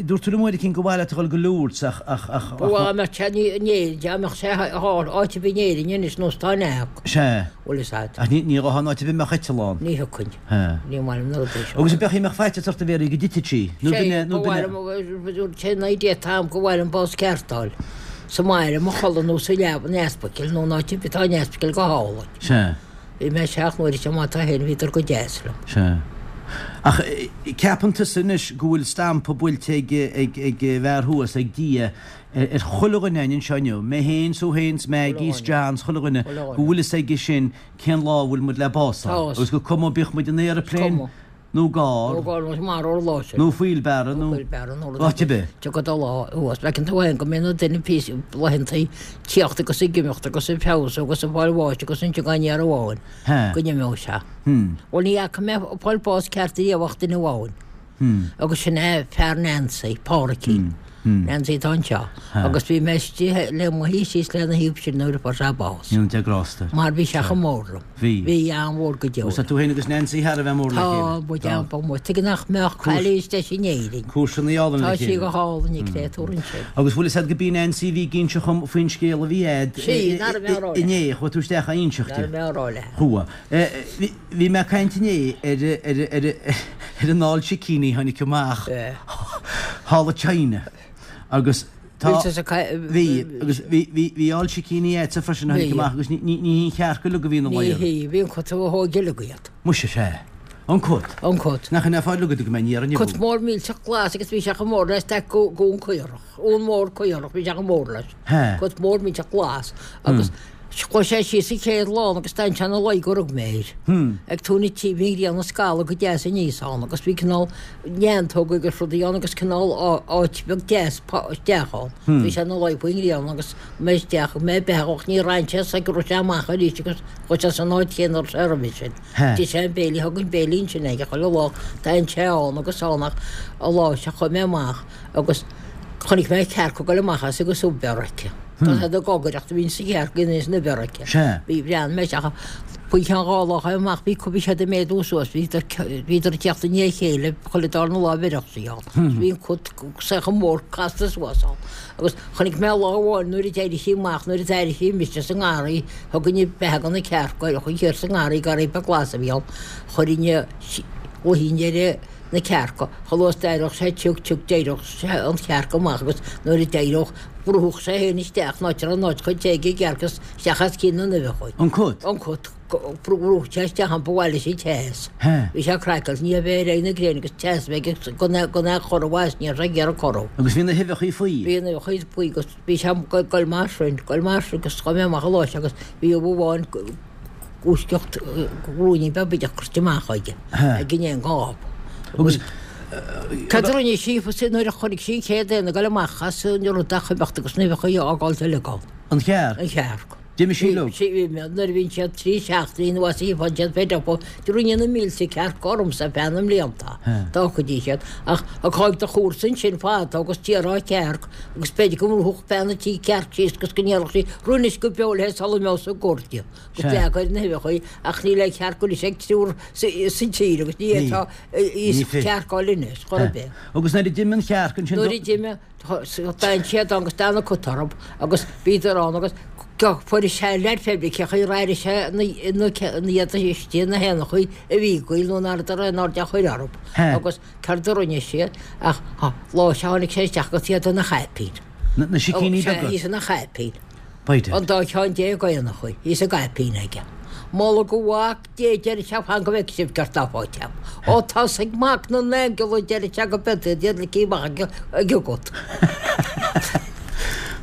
dúirt tú liom uair eicínt gur mhaith leat a dhul go Lourdes ach, ach, ach. Ba mhaith dá mbeadh sé in Éirinn, dá mbeadh sé áit ar bith in Éirinn anois nós tá in Eag. Sea. Bhfuil fhios a'd. Ach ní, ní ghabhfá in áit ar bith a mbeadh eiteall ann. Ní thiocfainn. Heh. Ní maith liom na rudaí seo. Agus an beadh mbeadh faitíos ort a Mhéaraí go dtitfeadh sí? Nó b'in é, nó b'in é. Ba mhaith liom, sé an idea atá a'm gur mhaith liom bás ceart a fháil. Sa mbaile, i mo chodladh nó sa leaba in ospidéal nó in áit ar bith atá an ospidéal go hálainn. Sea. Bhí mé isteach nuair is má tá féin bhíodar go deas liom. Sea. Ach ceapann tusa anois go bhfuil stampa buailte ag, ag, ag an bhfear thuas, ag Dia, ar chuile dhuine againn anseo inniu, mé féin, 's thú féin, 's Maggie, 's John, 's chuile dhuine, go bhfuil fhios aige sin cén lá a bhfuil muid le bás a fháil. Agus gur cuma bíodh muid in aeroplane nó i gcarr Nó gcarr nó marbh ar lá sin. nó wheelbarrow nó Nó wheelbarrow nó rud áit ar bith. Tiocfaidh do lá thuas. Feiceann tú féin go mbíonn an duine píosa laethanta tíocht agus ag imeacht agus ag feabhsú agus ag fáil bháis agus ansin gan aon amháin go n-imeodh sé. Bhuel ní fhaca mé ag fáil bás ceart riamh ach duine amháin. Agus sin é fear Nancy, Pádraicín. Nancy atá anseo. Agus bhí mé istigh le mo shuí síos lena thaobh sin nuair a fuair sé bás. Go ndéana Dia grásta air. Mar bhí sé chomh mór liom. Bhí. Bhí an-mhór go deo. Agus tá tú féin agus Nancy thar a bheith mór le chéile. Tá, muid an-mhór. Tuige nach mbeadh cailín is deise in Éirinn. Cúirseanna álainn le Tá sí chéile. go hálainn, an créatúr ansin. Agus bhfuil fhios a'd go b'í Nancy a bhí ag inse dhom faoin scéal a bhí a'd Sí, ná raibh mé á rá léi. inné, chuaigh tú isteach á inseacht Ná di. raibh mé á rá léi. Chuaigh. Bhí mé ag caint inné ar ar ar an ál sicíní a tháinig amach thall i China agus tá bhí agus bhí bhí bhí ál sicíní a'dsa freisin a tháinig amach agus ní ní ní hí an chearc uilig a bhí ina Ní luí. hí, bhí an cut a thóg uilig iad. Muise sea. An cut. An cut. Nach in é fáil agat go mbeidh ní ar an Cut mór millteach glas agus bhí sé chomh mór le staic uan caorach. Uan mór caorach, bhí sé chomh mór leis. Cut mór millteach glas agus Chuaigh sé síos an chéad lawn agus d'fhan sé ina luí gur rug mé air. Ag tóin an tí bhí an ghrian ag scalladh go deas aníos ann agus bhí cineál neantóga agus rudaí ann agus cineál áit bheag deas isteach ann. Bhí sé ina luí faoin ngrian agus mé isteach mé beathach ní raibh sé sa go raibh sé amach arís agus chuaigh sé san áit chéanna a raibh sé roimhe sin. D'ith sé an béile, thug an béile ansin aige chuile lá, d'fhan sé ann agus ann ach an lá seo chuaigh mé amach agus chonaic mé cearc ag dul amach as agus ubh aici. Tá siad ag gogaireacht a bhíonn sa chearc ina san uimhir aici. Sea. Bhí bhreathnaigh mé isteach faoi cheann dha lá chuaigh amach bhí bhí siad ag méadú suas bhíodar bhíodar ag teacht i ndiaidh a chéile chuile darna lá bheireadh sí ann. Bhí an cut saocha mór casta suas ann. Agus chonaic mé lá amháin nuair a d'éirigh sí amach nuair a d'airigh sí mise sa ngarraí thugainn beatha do na cearca chuaigh siar sa ngarraí garraí beag glas a bhí ann chuirfinn luichín ar na cearca, chomh luath is d'éireodh sé sioc sioc d'éireodh sé an chearc amach agus nuair a d'éireodh bhrúfadh sé féin isteach in áit a raibh an áit chomh te ag an gcearc is isteach os cionn na n-uibheacha. An cut? An cut. Bhrúfadh sé isteach ann ba mhaith leis an teas. Hea. Bhí sé craiceáilte, ní bheith ar aghaidh na gréine agus teas a bheith aige gan é gan é a chorrú as, ní raibh sé ag iarraidh corrú. Agus bhí na huibheacha faoi? Bhí na huibheacha faoi agus bhí sé ag goil mar sin, goil mar sin agus chuaigh mé amach an lá sin agus bhí ubh amháin gluaiseacht ruainnín beag bídeach curtha amach aige ag an éan gáb. Agus Cad a rinne sí nuair a chonaic sí an chéad éan ag dul amach as an rud ach imeacht agus na huibheacha a fhágáilt uilig ann? An chearc? An chearc. D'imigh sí leo. Bhí, nuair a bhíonn siad 3 seachtainí nó as faigheann siad fed up, rinne na mílte cearc ormsa feadh na mblianta, d'fhágfaidís iad. Ach ag do chúrsa ansin fada agus d'iarrfá cearc agus b'fhéidir go mbrúfadh bean an tí cearc síos agus go ndéarfadh sí, Rinnis go beo léi sula mbeadh sa gcur di, agus leag ar na huibheacha í, ach níl aon chearc anois ag triúr sa tír agus ní fhéadfá í a chearcáil anois, chor ar bith. Agus nuair a d'imigh an chearc ansin. Nuair a d'imigh. D'fhan siad ann agus d'fhan an cut orthu agus bhíodar ann agus fuair sé leid Feirmeacha ar airigh sé na iad istigh na héanachaí a bhí ag goil nó nach raibh aon aird á chur orthu agus céard a rinne siad ach lá seo tháinig sé isteach agus iad ina chaipín. Na sicíní beaga? Sea, ina chaipín. An dá cheann déag éanachaí, thíos sa gcaipín aige. Moladh do Mhac Dé, deir sé, fan go bhfeicfidh sibh céard tá faighte agam. Ó tosaigh Mac na nAingeal, a deir sé, go b'fhéidir iad iad ligthe amach ag an gcut.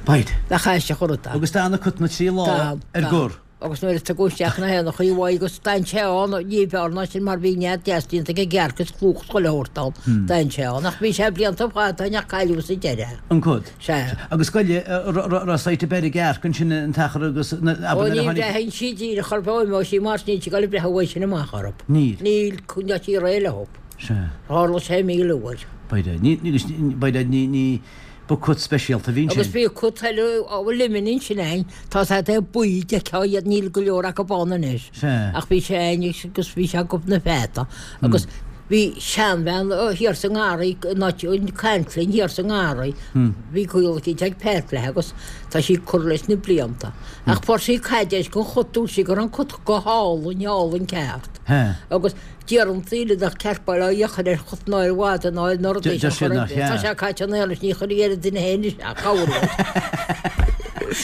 Bite. Nach aisteach an rud é. Agus d'fhan an cut na trí lá ar gor. Agus nuair a tugadh isteach na héanachaí uaidh agus d'fhan sé ann, ní b'fhearr ná sin mar bhí nead deas déanta ag an gcearc is clúch is chuile shórt ann, d'fhan sé ann. Ach bhí sé blianta fada ach cailleadh sa deireadh. An cut. Sea. Agus goile, raibh sight ar bith ar an gcearc ansin an t-achar agus, abair Ó nuair a ní tháinig. bhraitheann sí díreach orthu ó imeoidh sí mar níl sí ag dul ag breith uaidh sin amach orthu. Níl. Níl, coinneoidh sí réidh leo. Sea. Tharla sé 1000 uair. B'fhéidir. Ní, ní, b'fhéidir ní, ní, ba cut speisialta a bhí ansin. Agus bhí cut eile ó Luimnigh ansin ann, tá siad é buí, d'fheicfeá iad, níl go leor acu ann anois. Sea. Ach bhí sé ann agus bhí sé ag na feata. Agus bhí seanbhean thiar sa ngarraí, in áit ag caint linn thiar sa ngarraí, bhí gaol eicínt ag Pat léi agus tá sí curtha leis na blianta. Ach fuair sí caidéis den chut, dúirt sí go raibh an cut go hálainn, álainn ceart. Agus deireann daoine nach ceart bail ó Dhia a chur ar chut ná ar mhadadh ná ar na rudaí Deir seo siad chor ar nach bith. Tá ea. sé caite in aon leis, ní chuirfidh ar an duine féin isteach, cabhair uait.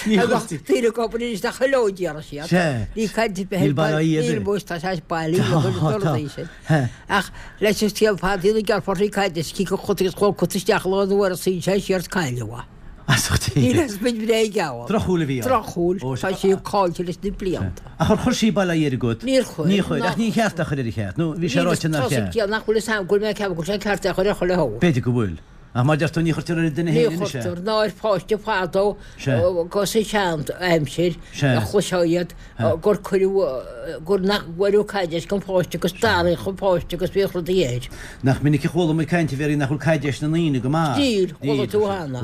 Ní Agus chuirtí. daoine ag obair anois nach chuile déarfaidh siad. Sea. Ní caint ar bith Níl bail ó Dhia ar Níl bith. muis, tá sé bailí Tá, a chuir na tá. rudaí sin. He. Ach leis an scéal fada ina gceartfar sí caid is cíc an chut agus chuaigh an cut isteach lá an uair a suíonn sé siar is cailleadh é. As ucht Dé. Níl aon spid bhréige ann. Drochshúil a bhí ann. Drochshúil. Ó, Tá sí caillte leis na blianta. Ach ar chuir sí bail ó Dhia ar an gcut? Níor chuir. Níor chuir. Ach ní cheart é a chur air an cheart? Nó bhí sé ráite nár Níl cheart? Tá nach bhfuil fhios a'm go bhfuil mé ag ceapadh go bhfuil sé ceart é a chur ar chuile shórt. B'fhéidir go bhfuil. Ach mar deir tú, ní chuirtear ar an duine Ní féin anois é. chuirtear, ná ar pháiste fadó Sea. go sa sean aimsir Sea. a chloisfeá iad gur cuireadh, gur nach bhfuaireadh caidéis don pháiste agus d'araíodh an páiste agus bhíodh rudaí air. Nach minic a chuala muid caint a Mhéirí nach bhfuil caidéis na ndaoine go maith. Níl, chuala tú cheana.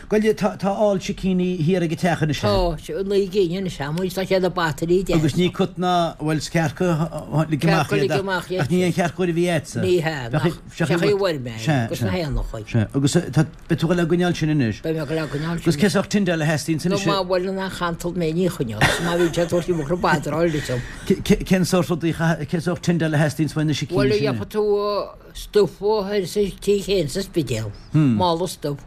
Goile, tá, tá ál sicíní thiar ag an teach anois. Tá, 9 gcinn anois amuigh, tá siad ag batairí deasa. Agus ní cut ná, bhuel, is cearca lig amach Cearca iad lig amach iad. ach ní aon chearc úr a bhí agatsa. Ní hea, nach, seach í bhfuair mé Sea, agus na sea. héanachaí. Sea, agus tá, beidh tú ag dul á gcoinneáil sin anois. Beidh mé ag dul á gcoinneáil sin. Agus cén sórt tindeáil a theastaíonns Nó anois? má bhuaileann an chantal mé ní choinneoidh, má bhíonn sé ag tabhairt imeacht na badráil duit. Cén sórt rudaí, cén sórt tindeáil a theastaíonns uaidh na sicíní Bhuel, sin? gheobhaidh tú stuif thoir sa tí chéanna sa Spidéal, mála stuif,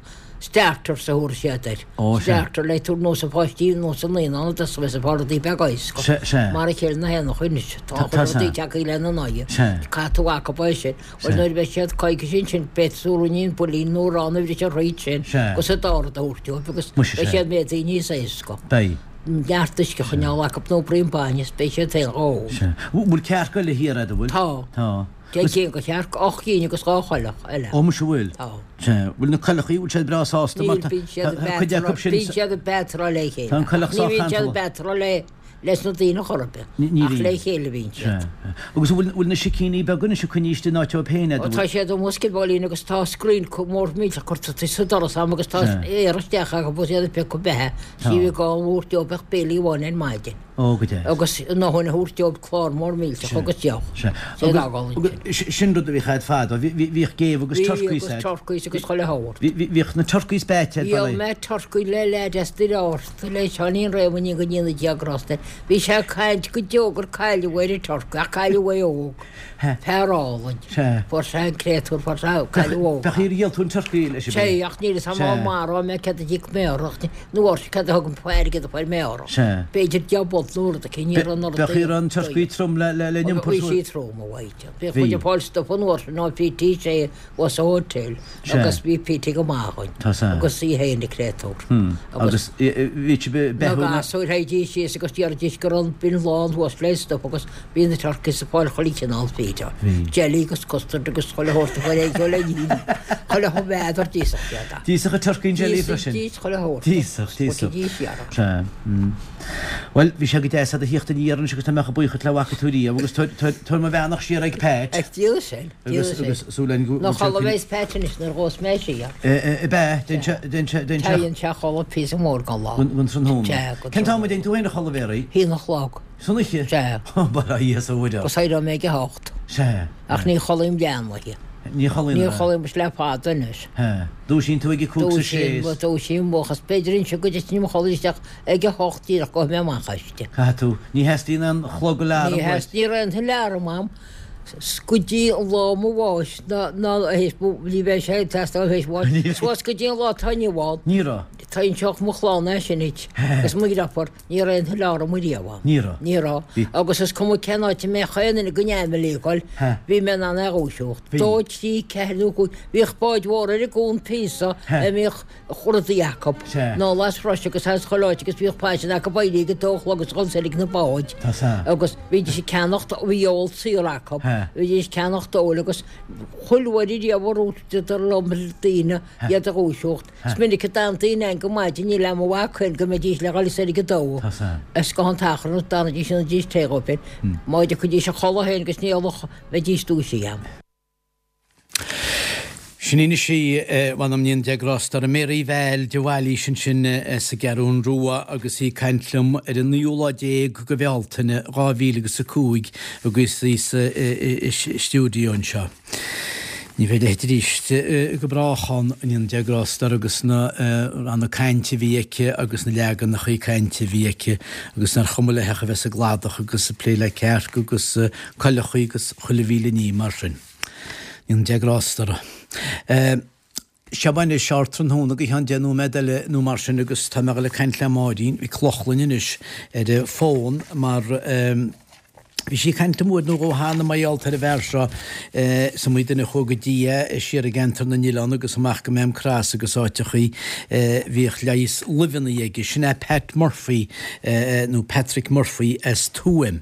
starters a thabharfaidh siad air. Ó, sea. Starter le tabhairt nós an pháistí, nós an naíonán a dtosóidh sa fá rudaí beaga éasca. Sea, sea. Mar a chéile na héanacha anois, tá Tá, chuile tá, rudaí sea. tagtha lena n-aghaidh. Sea. Caithfidh tú acu é sin. Sea. Bhuel, nuair a bheidh siad coicís ansin, beidh tú ruainnín builín nó arán a bhriseadh thríd sin Sea. agus an dá rud a thabhairt dóibh agus Muise, beidh sea. siad méadaithe níos éasca. Beidh. Neart uisce a choinneáil acu nó braon bainne is beidh siad féin dhá ól. Sea. Bhfuil cearc eile thiar agat, an bhfuil? Tá. Tá. 10 gcinn de chearc, 8 gcinn agus 2 choileach eile. Ó muise bhfuil? Tá. Sea. Bhfuil na coileachaí, bhfuil siad breá sásta mar Níl, bíonn siad tá cuid acu sin. Bíonn siad ag batráil le chéile. Tá an coileach Ní sách bhíonn siad ag cantalach. batráil le leis na daoine chor ar bith. Ní Ach bhíonn. le chéile a bhíonn siad. Sea. Agus bhfuil bhfuil na sicíní beaga anois ag coinní istigh in áit dóibh féin Ó tá siad amuigh sciobóilín agus tá scrín mór millteach curtha sa doras a'm agus tá Sea. aer isteach acu agus iad ag piocadh beatha. Tá. Sí bhí gá an mhór dóibh ach béilí amháin ar maidin. Ó, go deas. Agus a ndóthain a thabhairt dóibh clár mór millteach agus deoch. Sea. Sé Agus, fhágáil ansin. agus sin rud a bhíodh a'd fadó. Bhí, bhí, bhíodh géabha agus Bhí turcaís agus a'd. turcaís agus chuile shórt. Bhí, bhí, bhíodh na turcaís beaite a'd, Dhíol bail ó. mé turcaí le leaid as Doire Ársa, le Seáinín Réamoinn go ndéana Dia grásta air. Bhí sé ag caint go deo gur cailleadh é ar an turcaí, ach cailleadh é óg. He. Fear álainn. Sea. Fuair sé an créatúr, fuair sé, cailleadh óg. Bheadh ar dhíol tú an turcaí leis an Sea, ach níl fhios a'm Sea. marbh mé céard a d'íoc mé orthu, ach ní, nó orthu céard a thug an airgead a fuair mé orthu. Sea. B'fhéidir 10 bpunt. rud nó rud aici, ní raibh an rud. Bheadh an turcaí trom le le n-iompar Bhí sí trom, a Mháirtín. Bhíodh muid ag fáil stuif an uair sin ó Pete Shea thuas sa hotel agus bhí Pete go maith againn agus í féin a créatúr. Agus bhí sibh ag beathú na. Na gasúir théidís síos agus déarfaidís go raibh an bin lán thuas le stuif agus bhí na turkeys ag fáil chuile chineál feed. Jelly agus custard agus chuile shórt a chuir é le ní. Chuile n'fheadar d'íosfadh siad. D'íosfadh an turcaí an jelly freisin? D'íosfadh chuile shórt. D'íosfadh, d'íosfadh. Bhuel, bhí sé go deas a'd a thíocht aniar anois agus tá mé chomh buíoch dhuit le bhfaca tú riamh agus tabhair mo bheannacht siar ag Pat. Ag Dia sin, Dia Agus, sin. agus súil againn go Ná bhfuil sé chodladh bheas Pat anois nuair a ghabhfas mé siar. Ab ea, déan sé, déan sé, déan sé. Téann sé a chodladh píosa mór den lá. Don tráthnóna. Sea, go Cén t-am a dtéann tú féin a chodladh, Mary? Haon a chlog. San oíche? Sea. Bail ó Dhia is ó Mhuire ort. Agus éireoidh mé ag a hocht. Sea. Ach ní chodlaím leath an oíche. Ní chodlaíonn, Ní chodlaím le fada anois. Sea. Dúisíonn tú ag a cúig 's a sé is. Dúisím, dúisím, agus b'fhéidir ansin go dtitfinn i mo chodladh isteach ag a hocht díreach gabhfaidh mé amach aisti. Caithfidh tú. Ní theastaíonn aon chlog alarm Ní uait. Ní raibh aon alarm a'm go dtí an lá mo bháis ná ná théis ní bheidh sé ag teastáil théis bháis suas go dtí an lá atá inniu ann. Ní raibh. Tá inseoidh mo chlann é sin duit agus mo dheirfiúr. Ní raibh aon alarm ariamh a'm. Ní raibh. Ní raibh. Bhí. Agus is cuma cén áit a mbeadh aon duine den fhamily ag dul, bhí mé in ann é a dhúiseacht. Bhí. Dó, trí, ceathair nó cúig. Bhíodh báid mhór ar an gcuan píosa a mbíodh rudaí acu. Sea. Anall as Russia agus as chuile áit agus bhíodh faisean acu éirí ag a dó a chlog agus dhul soir ag na báid. Tá sea. Agus bhídís ag ceannacht, bhí ól saor acu. Bhídís ag ceannacht óil agus chuile uair ariamh a dhúisíodar liom daoine iad a dhúiseacht. Is minic a d'fhan daoine ann go maidin, níl a'm mo mhac féin go mbeidís le dhul soir ag a dó. Is go han t-achrann is d'fhanaidís dhéanaidís tae dhóibh féin. Má thiocfaidís a chodladh féin agus ní fholach bheidís dúisithe a'm. Sin í anois í, mh'anam 'na ndéana Dia grásta uirthi, Mary Val de Bhailís ansin as an gCeathrún Rua agus í ag caint liom ar an naoú lá déag de Bhealtaine 2000 agus a 5 agus í sa stiúideo anseo. Ní bheidh a leithéid arís go brách ann, go ndéana Dia grásta uirthi agus na ranna cainte a bhí aici agus na leaganachaí cainte a bhí aici agus nár chuma léi ach a bheith sa gcladach agus ag plé le cearca agus coileachaí agus chuile mhíle ní mar sin. Go ndéana Dia grásta uirthi. Seo anois ardtráthnóna go cheann deich nóiméad eile nó mar sin agus tá mé ag dul ag caint le Máirín Mhic Lochlainn anois ar an bhfón mar bhí sí ag caint liom uair nó dhó cheana mar gheall ar an bhfear seo is iomaí duine a chuaigh go dtí é siar i gceantar na nOileán agus amach go Maam Cross agus áiteachaí bhíodh leigheas luibheanna aige. Sin é Pat Murphy nó Patrick Murphy as Tuaim.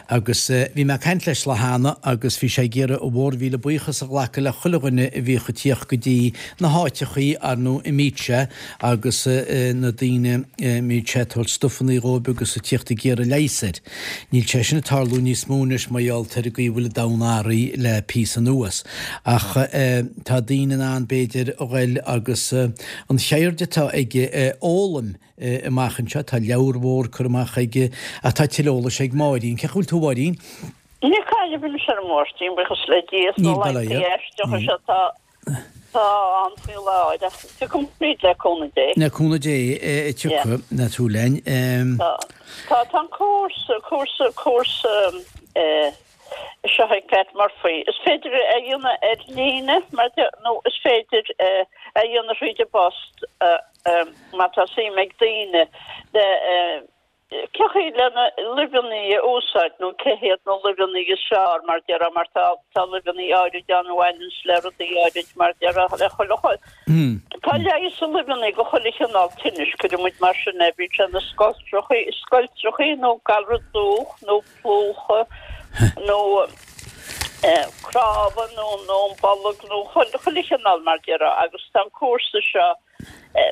Agus bhí mé ag caint leis lá cheana agus bhí sé ag iarraidh a mhórmhíle buíochas a ghlacadh le chuile dhuine a bhíodh ag tíocht go dtí na háiteachaí ar ndóigh a mbíodh sé agus na daoine a mbíodh sé ag tabhairt stufannaí dhóibh agus ag tíocht ag iarraidh leighis air. Níl sé sin ag tarlú níos mó anois mar gheall ar an gcaoi a bhfuil an domhan athraithe le píosa anuas. Ach tá daoine in ann b'fhéidir a ghoil agus an cheird atá aige a fhoghlaim amach anseo. Tá leabhar mhór curtha amach aige ach tá tuilleadh eolais ag Máirín. Cén chaoi a bhfuil tú a Mháirín? Níl cailleadh anois orm a Mháirtín, buíochas le Dia, is na Níl bail ó laethanta Dhia. aisteacha seo atá atá ann faoi láthair ach tiocfaidh tríd le cúnamh Dé. Le cúnamh Dé tiocfaidh, ná tú linn. Tá tá tá an cúrsa cúrsa cúrsa eh seo ag Pat Murphy. Is féidir é a dhéanamh ar líne mar nó is féidir é a dhéanamh thríd an bpost má tá suim ag daoine le cé chaoi le na luibheanna a úsáid nó cé hiad na luibheanna is fearr mar déarfá mar tá tá luibheanna áirid ann a bhaineanns le rudaí áirid mar déarfá le chuile Tá leigheas i luibheanna go chuile chineál tinnis, cuireann muid mar sin é, bíodh sé na scoiltreachaí scoiltreachaí nó galra dúch nó plúchadh nó cnámha nó nó an bolg nó chuile chineál mar déarfá agus tá an cúrsa seo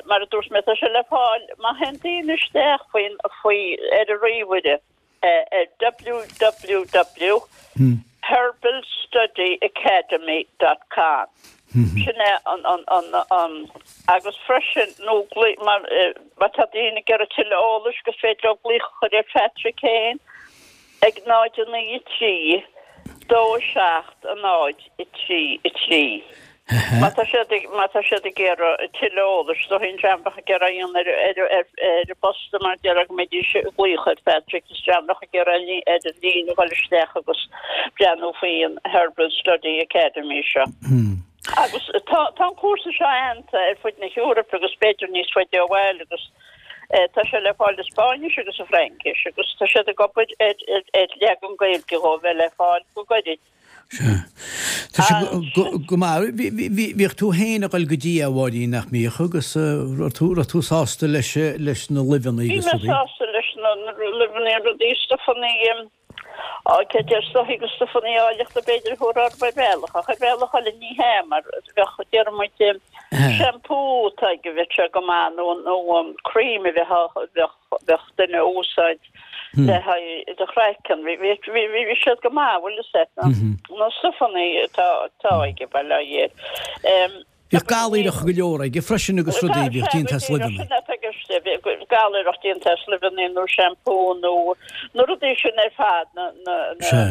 mar a dúirt mé tá sé le fáil má théann daoine isteach faoin faoi ar an ríomhaire ar www herbalstudyacademy dot com sin é an an an an agus freisin nó mar má tá daoine ag iarraidh tuilleadh eolais gur féidir leo glaoch a chur ar Phatrick féin ag 0 9 3 2 7 0 3 3. Má tá siad ag, má tá siad ag iarraidh tuilleadh eolais, is dóigh an dream bheadh ag iarraidh aon ar, ar, ar, ar an bpost mar déarfá go mbeidís ag glaoch ar Phatrick is dream bheadh ag iarraidh ar an líne a dhul isteach agus breathnú faoi an Herbal Study Academy seo. Agus tá, tá an cúrsa seo aitheanta ar fud na hEorpa agus b'fhéidir níos faide ó bhaile agus. Tá sé le fáil i Spáinnis agus i Fraincis agus tá siad ag obair ar ar leagan Gaeilge dhó a bheith le fáil go gairid. Sea. Tá sé go maith. Bhíodh tú féin ag dul go dtí é, a Mháirín, nach mbíodh? Agus raibh tú, raibh tú sásta leis, leis na luibheanna agus rudaí? Bhí mé sásta leis na luibheanna, rudaí, stufanna, á, cé deir stuffaí agus stufanna áilleachta b'fhéidir a thabharfá orthu ar bhealach, ach ar bhealach eile ní hea, mar bheadh, déarfaidh muid, shampoo atá aige, bheadh sé go maith, nó, nó cream a bheadh, bheadh, bheadh duine a úsáid le haghaidh do chraiceann. Bhí, bhí, bhí, bhí siad go maith, bhfuil fhios a't, na, na stufanna atá, atá aige, bail ó Dhia air. Bhíodh galaoireach go leor aige freisin agus rudaí a bhíodh déanta as luibheanna. Sin atá i gceist, bhíodh galaoireach déanta as luibheanna nó shampoo nó na rudaí sin ar fad, na, na, na,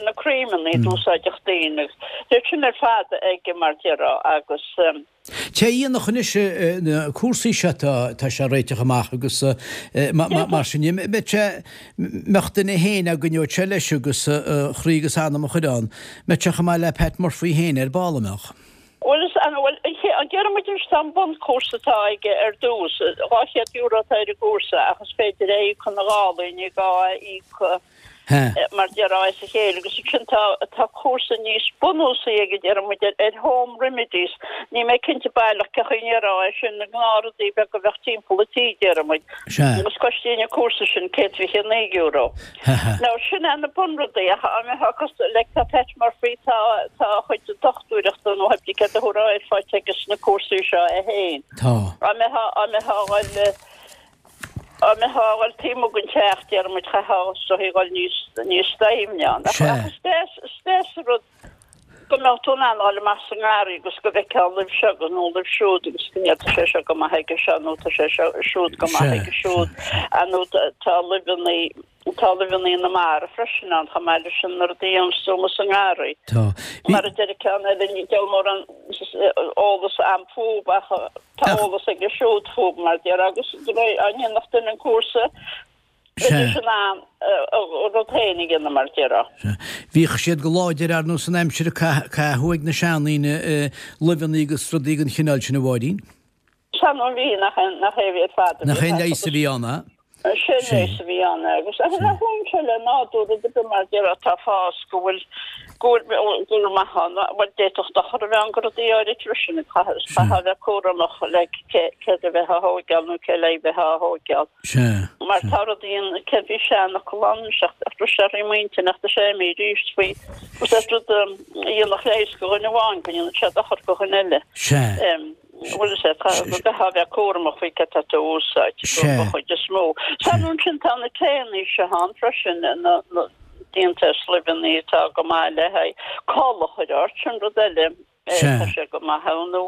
na creamanna a d'úsáideadh daoine agus bhíodh sin ar fad aige mar déarfá agus. Té a dhéanfadh anois na cúrsaí seo tá, tá sé a réiteach amach agus mar sin de, mbeadh sé, mbeadh duine féin á gcoinneodh sé leis agus a chroí agus a anam a chur ann, mbeadh sé chomh maith le Pat Murphy féin ar ball, an mbeadh? Bhuel, is an bhfuil, an déarfaidh muid anois tá an bunchúrsa atá aige ar dtús, €200 atá ar an gcúrsa ach is féidir é a íoc ina ghálaí, ní gá é a íoc mar déarfá as a chéile agus ansin tá, tá cúrsa níos bunúsaí aige déarfaidh muid ar, ar home remedies, níl mé cinnte baileach cén chaoi a ndéarfá é sin, na gnáthrudaí beaga a bheadh timpeall an tí déarfaidh muid agus cosnaíonn an cúrsa sin €129. Now sin é na bunrudaí ach an mbeifeá cosúil like tá Pat Murphy tá tá a chuid dochtúireachta nó pé céard a thabharfá air faighte aige sna cúrsaí seo é féin. Tá. An mbeifeá an mbeifeá a dhul an mbeifeá a dhul taobh amuigh den teach déarfaidh muid chaithfeá is dóichí dhul níos níos doimhne ann. Ach ach is deas is deas an rud go mbeadh tú in ann a dhul amach sa ngarraí agus go bhfeicfeá luibh seo agus nó luibh siúd agus go ndéarfá tá sé seo go maith aige seo nó tá sé seo siúd go maith aige siúd nó tá luibheanna tá luibheanna na mara freisin ann chomh maith leis na rudaí a dhéanas tú amuigh sa ngarraí. Tá. Mar a deir ceann eile ní deabhal mórán eolas a'm fúb ach tá eolas aige siúd fúb mar déarfá agus de réir an ndéanfadh duine an cúrsa Bheidís in ann a rud féin a dhéanamh mar déarfá. Sea. Bhíodh siad go láidir ar nós san aimsir a caitheadh ag na seandaoine luibheanna agus rudaí den chineál sin a Mháirín. Sea nó bhí, nach é a bhí ar fad a bhí. Nach é an leigheas a bhí ann, a? Sé an leigheas a bhí ann agus nach bhfuil sé le nádúr rud ar bith mar déarfá atá ag fás go bhfuil go bhfuil go bhfuil maith ann. Bhuel d'fhéadfadh dochar a bheith ann do rudaí áirid freisin caithfeá a bheith cúramach le céard a bheith á thóigeáil nó cé le bheith á thóigeáil. Sea. Mar tá rudaí ann, céard bhí seanfhocal ann, ach bhris sé thrí m'intinn ach tá sé imithe arís faoi, is é rud a dhéanfadh leigheas do dhuine amháin go ndéanann sé dochar do dhuine eile. Sea. Bhuel is é, tá, go gcaithfeá a bheith cúramach faoi céard atá tú a úsáid, don chuid is mó. Sea, nó ansin tá na taenna seo ann freisin, na, na, déanta as luibheanna atá go maith le haghaidh col a chur ort, sin rud eile. Sea. Tá sé go maith ann nó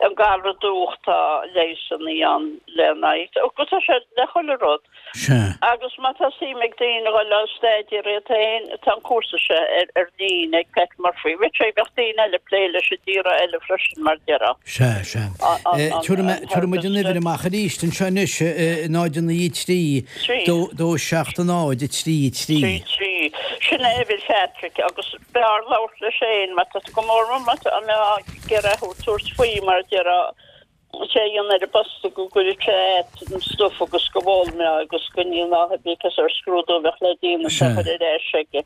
an galra dúch tá leigheasanna ann lena aghaidh. Agus tá sé le chuile rud. Sea. Agus má tá suim ag daoine a dhul á staidéar iad féin, tá an cúrsa seo ar ar líne ag Pat Murphy. Bheadh sé, bheadh daoine eile ag plé leis i dtíortha eile freisin mar déarfá. Sea, sea. Tabharfaidh muid an uimhir amach arís anseo anois, 0 9 3 2 2 7 0 3 3. 3 3. Sin é uimhir Phatrick agus B'fhearr labhairt leis féin má tá go mór mór má tá mé ag iarraidh thú tabhairt faoi mar a déarfá sé a dhéanamh ar an bpost go gcuirfidh sé a't an stuif agus go bhfoghlaimeá agus go ndéanfá pé cás ar scrúdú a bheadh le déanamh Sea. a chur ar ais aige.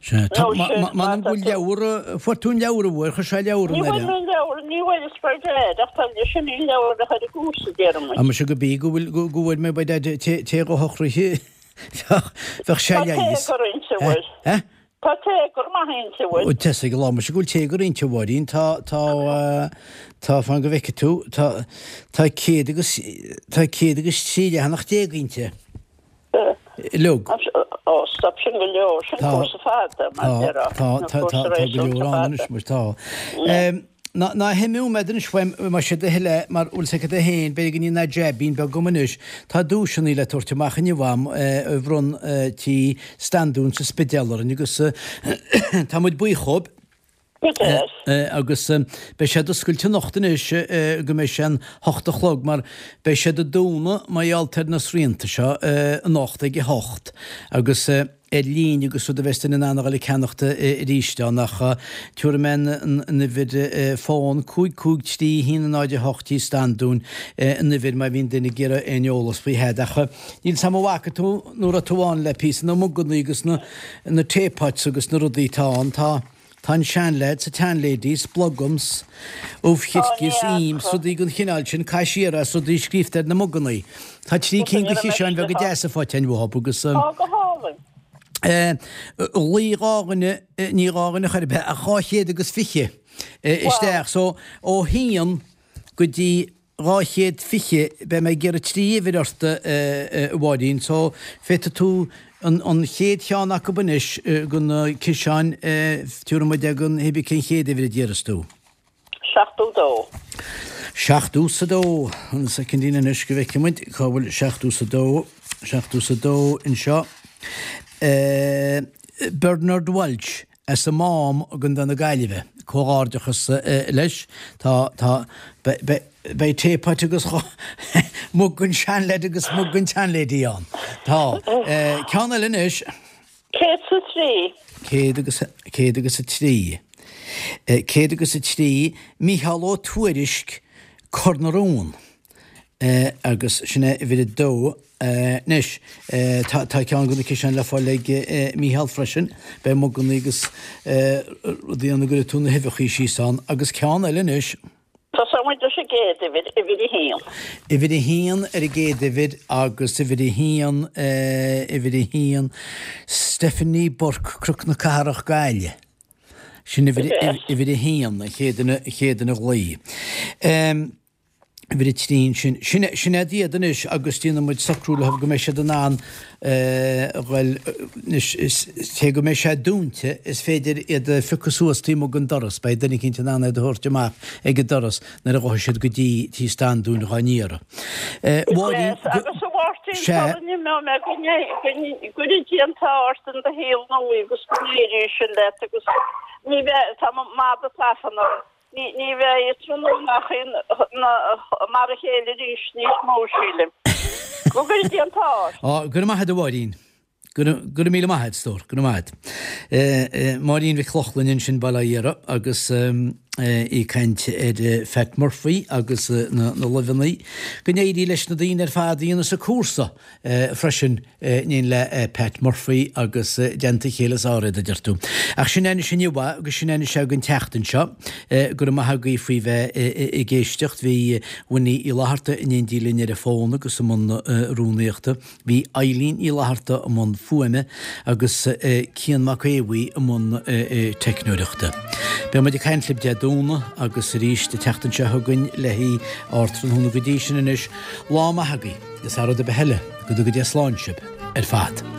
Sea. Tá, Nó ma, sin, ma, má m'anam tá go bhfuil tú. leabhar, fuair tú an leabhar an bhfuair, chuir sé leabhar Ní an bhfuair air. mé an leabhar, ní bhfuair is by dad ach tá sin í an leabhar a bheadh ar an gcúrsa, déarfaidh muid. Ah muise go bí go bhfuil, go, go bhfuair mé by dad té, té go shocraithe bheadh, bheadh sé Tá leigheas. téagar inti, an bhfuil? Eh? Tá téagar maith inti, an bhfuil? Ó, tá 'fhios ag Allah muise go bhfuil téagar inti, a Mháirín. Tá, tá, tá, fan go bhfeicfidh tú, tá, tá céad agus, tá 103 leathanach inti. Uilig. Ó, stop, sin go leor, sin cúrsa fada, mar Tá, déarfá. tá, tá, tá, tá go leor ann anois, muis, tá. Ná, ná himiú mé anois uaim, más é do thoil é, mar bhfuil 'fhios agat féin, b'fhéidir go ndéanfaidh jaibín beag agam anois. Tá duaiseanna le tabhairt amach inniu a'm, a bhronn Tí Standún sa Spidéal orainn agus tá muid buíoch dhóibh. Go deas. Agus beidh siad oscailte anocht anois go mbeidh sé an hocht a chlog mar beidh siad ag dúnadh mar gheall ar na srianta seo anocht ag a hocht agus. ar líne agus rud a bheas duine in ann a dhul ag ceannacht arís ann ach tabharfaidh mé an uimhir fón 5 5 3 1 0 8 Tí Standún an uimhir má bhíonn duine ag iarraidh aon eolas faoi Phat ach níl 's a'm an bhfaca tú nó raibh tú ann le píosa na mugannaí agus na na teapots agus na rudaí atá ann tá Tá an seanleaid 's an tseanlady 's Blugums, ubh chirce 's im 's rudaí den chineál sin, caith siar é 's rudaí scríobhta ar na mugannaí. Tá trí cinn de chiseáin bheaga deasa faighte againn uathub agus. Tá go hálainn. Ghlaoigh dhá dhuine, ní dhá dhuine chor ar bith, ach 220 isteach. So ó haon go dtí 220, beidh mé ag iarraidh 3 uimhir ort, a Mháirín, so féadfaidh tú an chéad cheann acu anois de na ciseáin, tabharfaidh muid againn cibé cén chéad uimhir a d'iarras tú. 72. Seachtó 's a dó, an soicindín anois go bhfeicfidh muid cá bhfuil seachtó 's a dó, seachtó 's a dó anseo. Bernard Walsh. As an Mám i gContae na Gaillimhe. Comhghairdeachas leis. Tá, tá, beidh teapot agus mug an seanleaid agus mug an tseanlady ann. Tá. Ceann eile anois. 103. Céad agus, 103. 103, Mícheál Ó Tuairisg, Cor na Rón. Agus sin é uimhir a dó. Anois, tá ceann de na ciseáin le fáil ag Mícheál freisin. Beidh muganna agus rudaí ann a gcuirfidh tú na huibheachaí síos ann. Agus ceann eile anois. Tosóidh muid leis an gcéad uimhir, uimhir a haon. Uimhir a haon ar an gcéad uimhir agus uimhir a haon, uimhir a haon, Stephanie Burke, Cnoc na Cathrach, Gaillimh. Sin uimhir, uimhir a haon, an chéad duine, an chéad duine a ghlaoigh. Uimhir a trí ansin. Sin, sin iad iad anois agus déanfaidh muid socrú leo go mbeidh siad in ann a ghoil anois, is, cé go mbeidh sé dúnta, is féidir iad a phiocadh suas taobh amuigh den doras, beidh duine eicínt in ann iad a thabhairt amach ag an doras nuair a ghabhfaidh siad go dtí Tí Standúin dhá n-iarraidh. Mháirín, go, Agus a Mháirtín, sea. sula n-imeoidh mé, go gcuire Dia an t-ádh ort in do shaol nua agus go n-éirí sin leat agus ní bheidh, tá mo mhada tafann orm. Ní bheidh tráthnóna mar a chéile arís níos mó, sílim. Go gcuire Dia an t-ádh ort. Á, go raibh maith agat a Mháirín. Go raibh míle maith agat, a stór, go raibh maith agat. Máirín Mhic Lochlainn ansin, Baile Átha Dhéara, agus í ag caint ar Phat Murphy agus na luibheanna. Go n-éirí leis na daoine ar fad a dhéanas an cúrsa. freisin in éindí le Pat Murphy agus i dteannta a chéile is fearr iad, a deir tú. Ach sin é anois inniu é agus sin é anois é don tseachtain seo. Go raibh maith agaibh faoi bheith ag éisteacht. Bhí Winnie Uí Fhlatharta in éindí linn ar an bhfón agus i mbun rúnaíochta. Bhí Eileen Uí Fhlatharta i mbun fuaime agus Cian Mac Aodha Bhuí i mbun teicneoireachta. Beidh muid ag caint libh Dé Domhnaigh agus arís an tseachtain seo chugainn le haghaidh Ardtráthnóna go dtí sin anois. Lá maith agaibh. Is thar rud ar bith eile, go dtuga Dia slán sibh ar fad.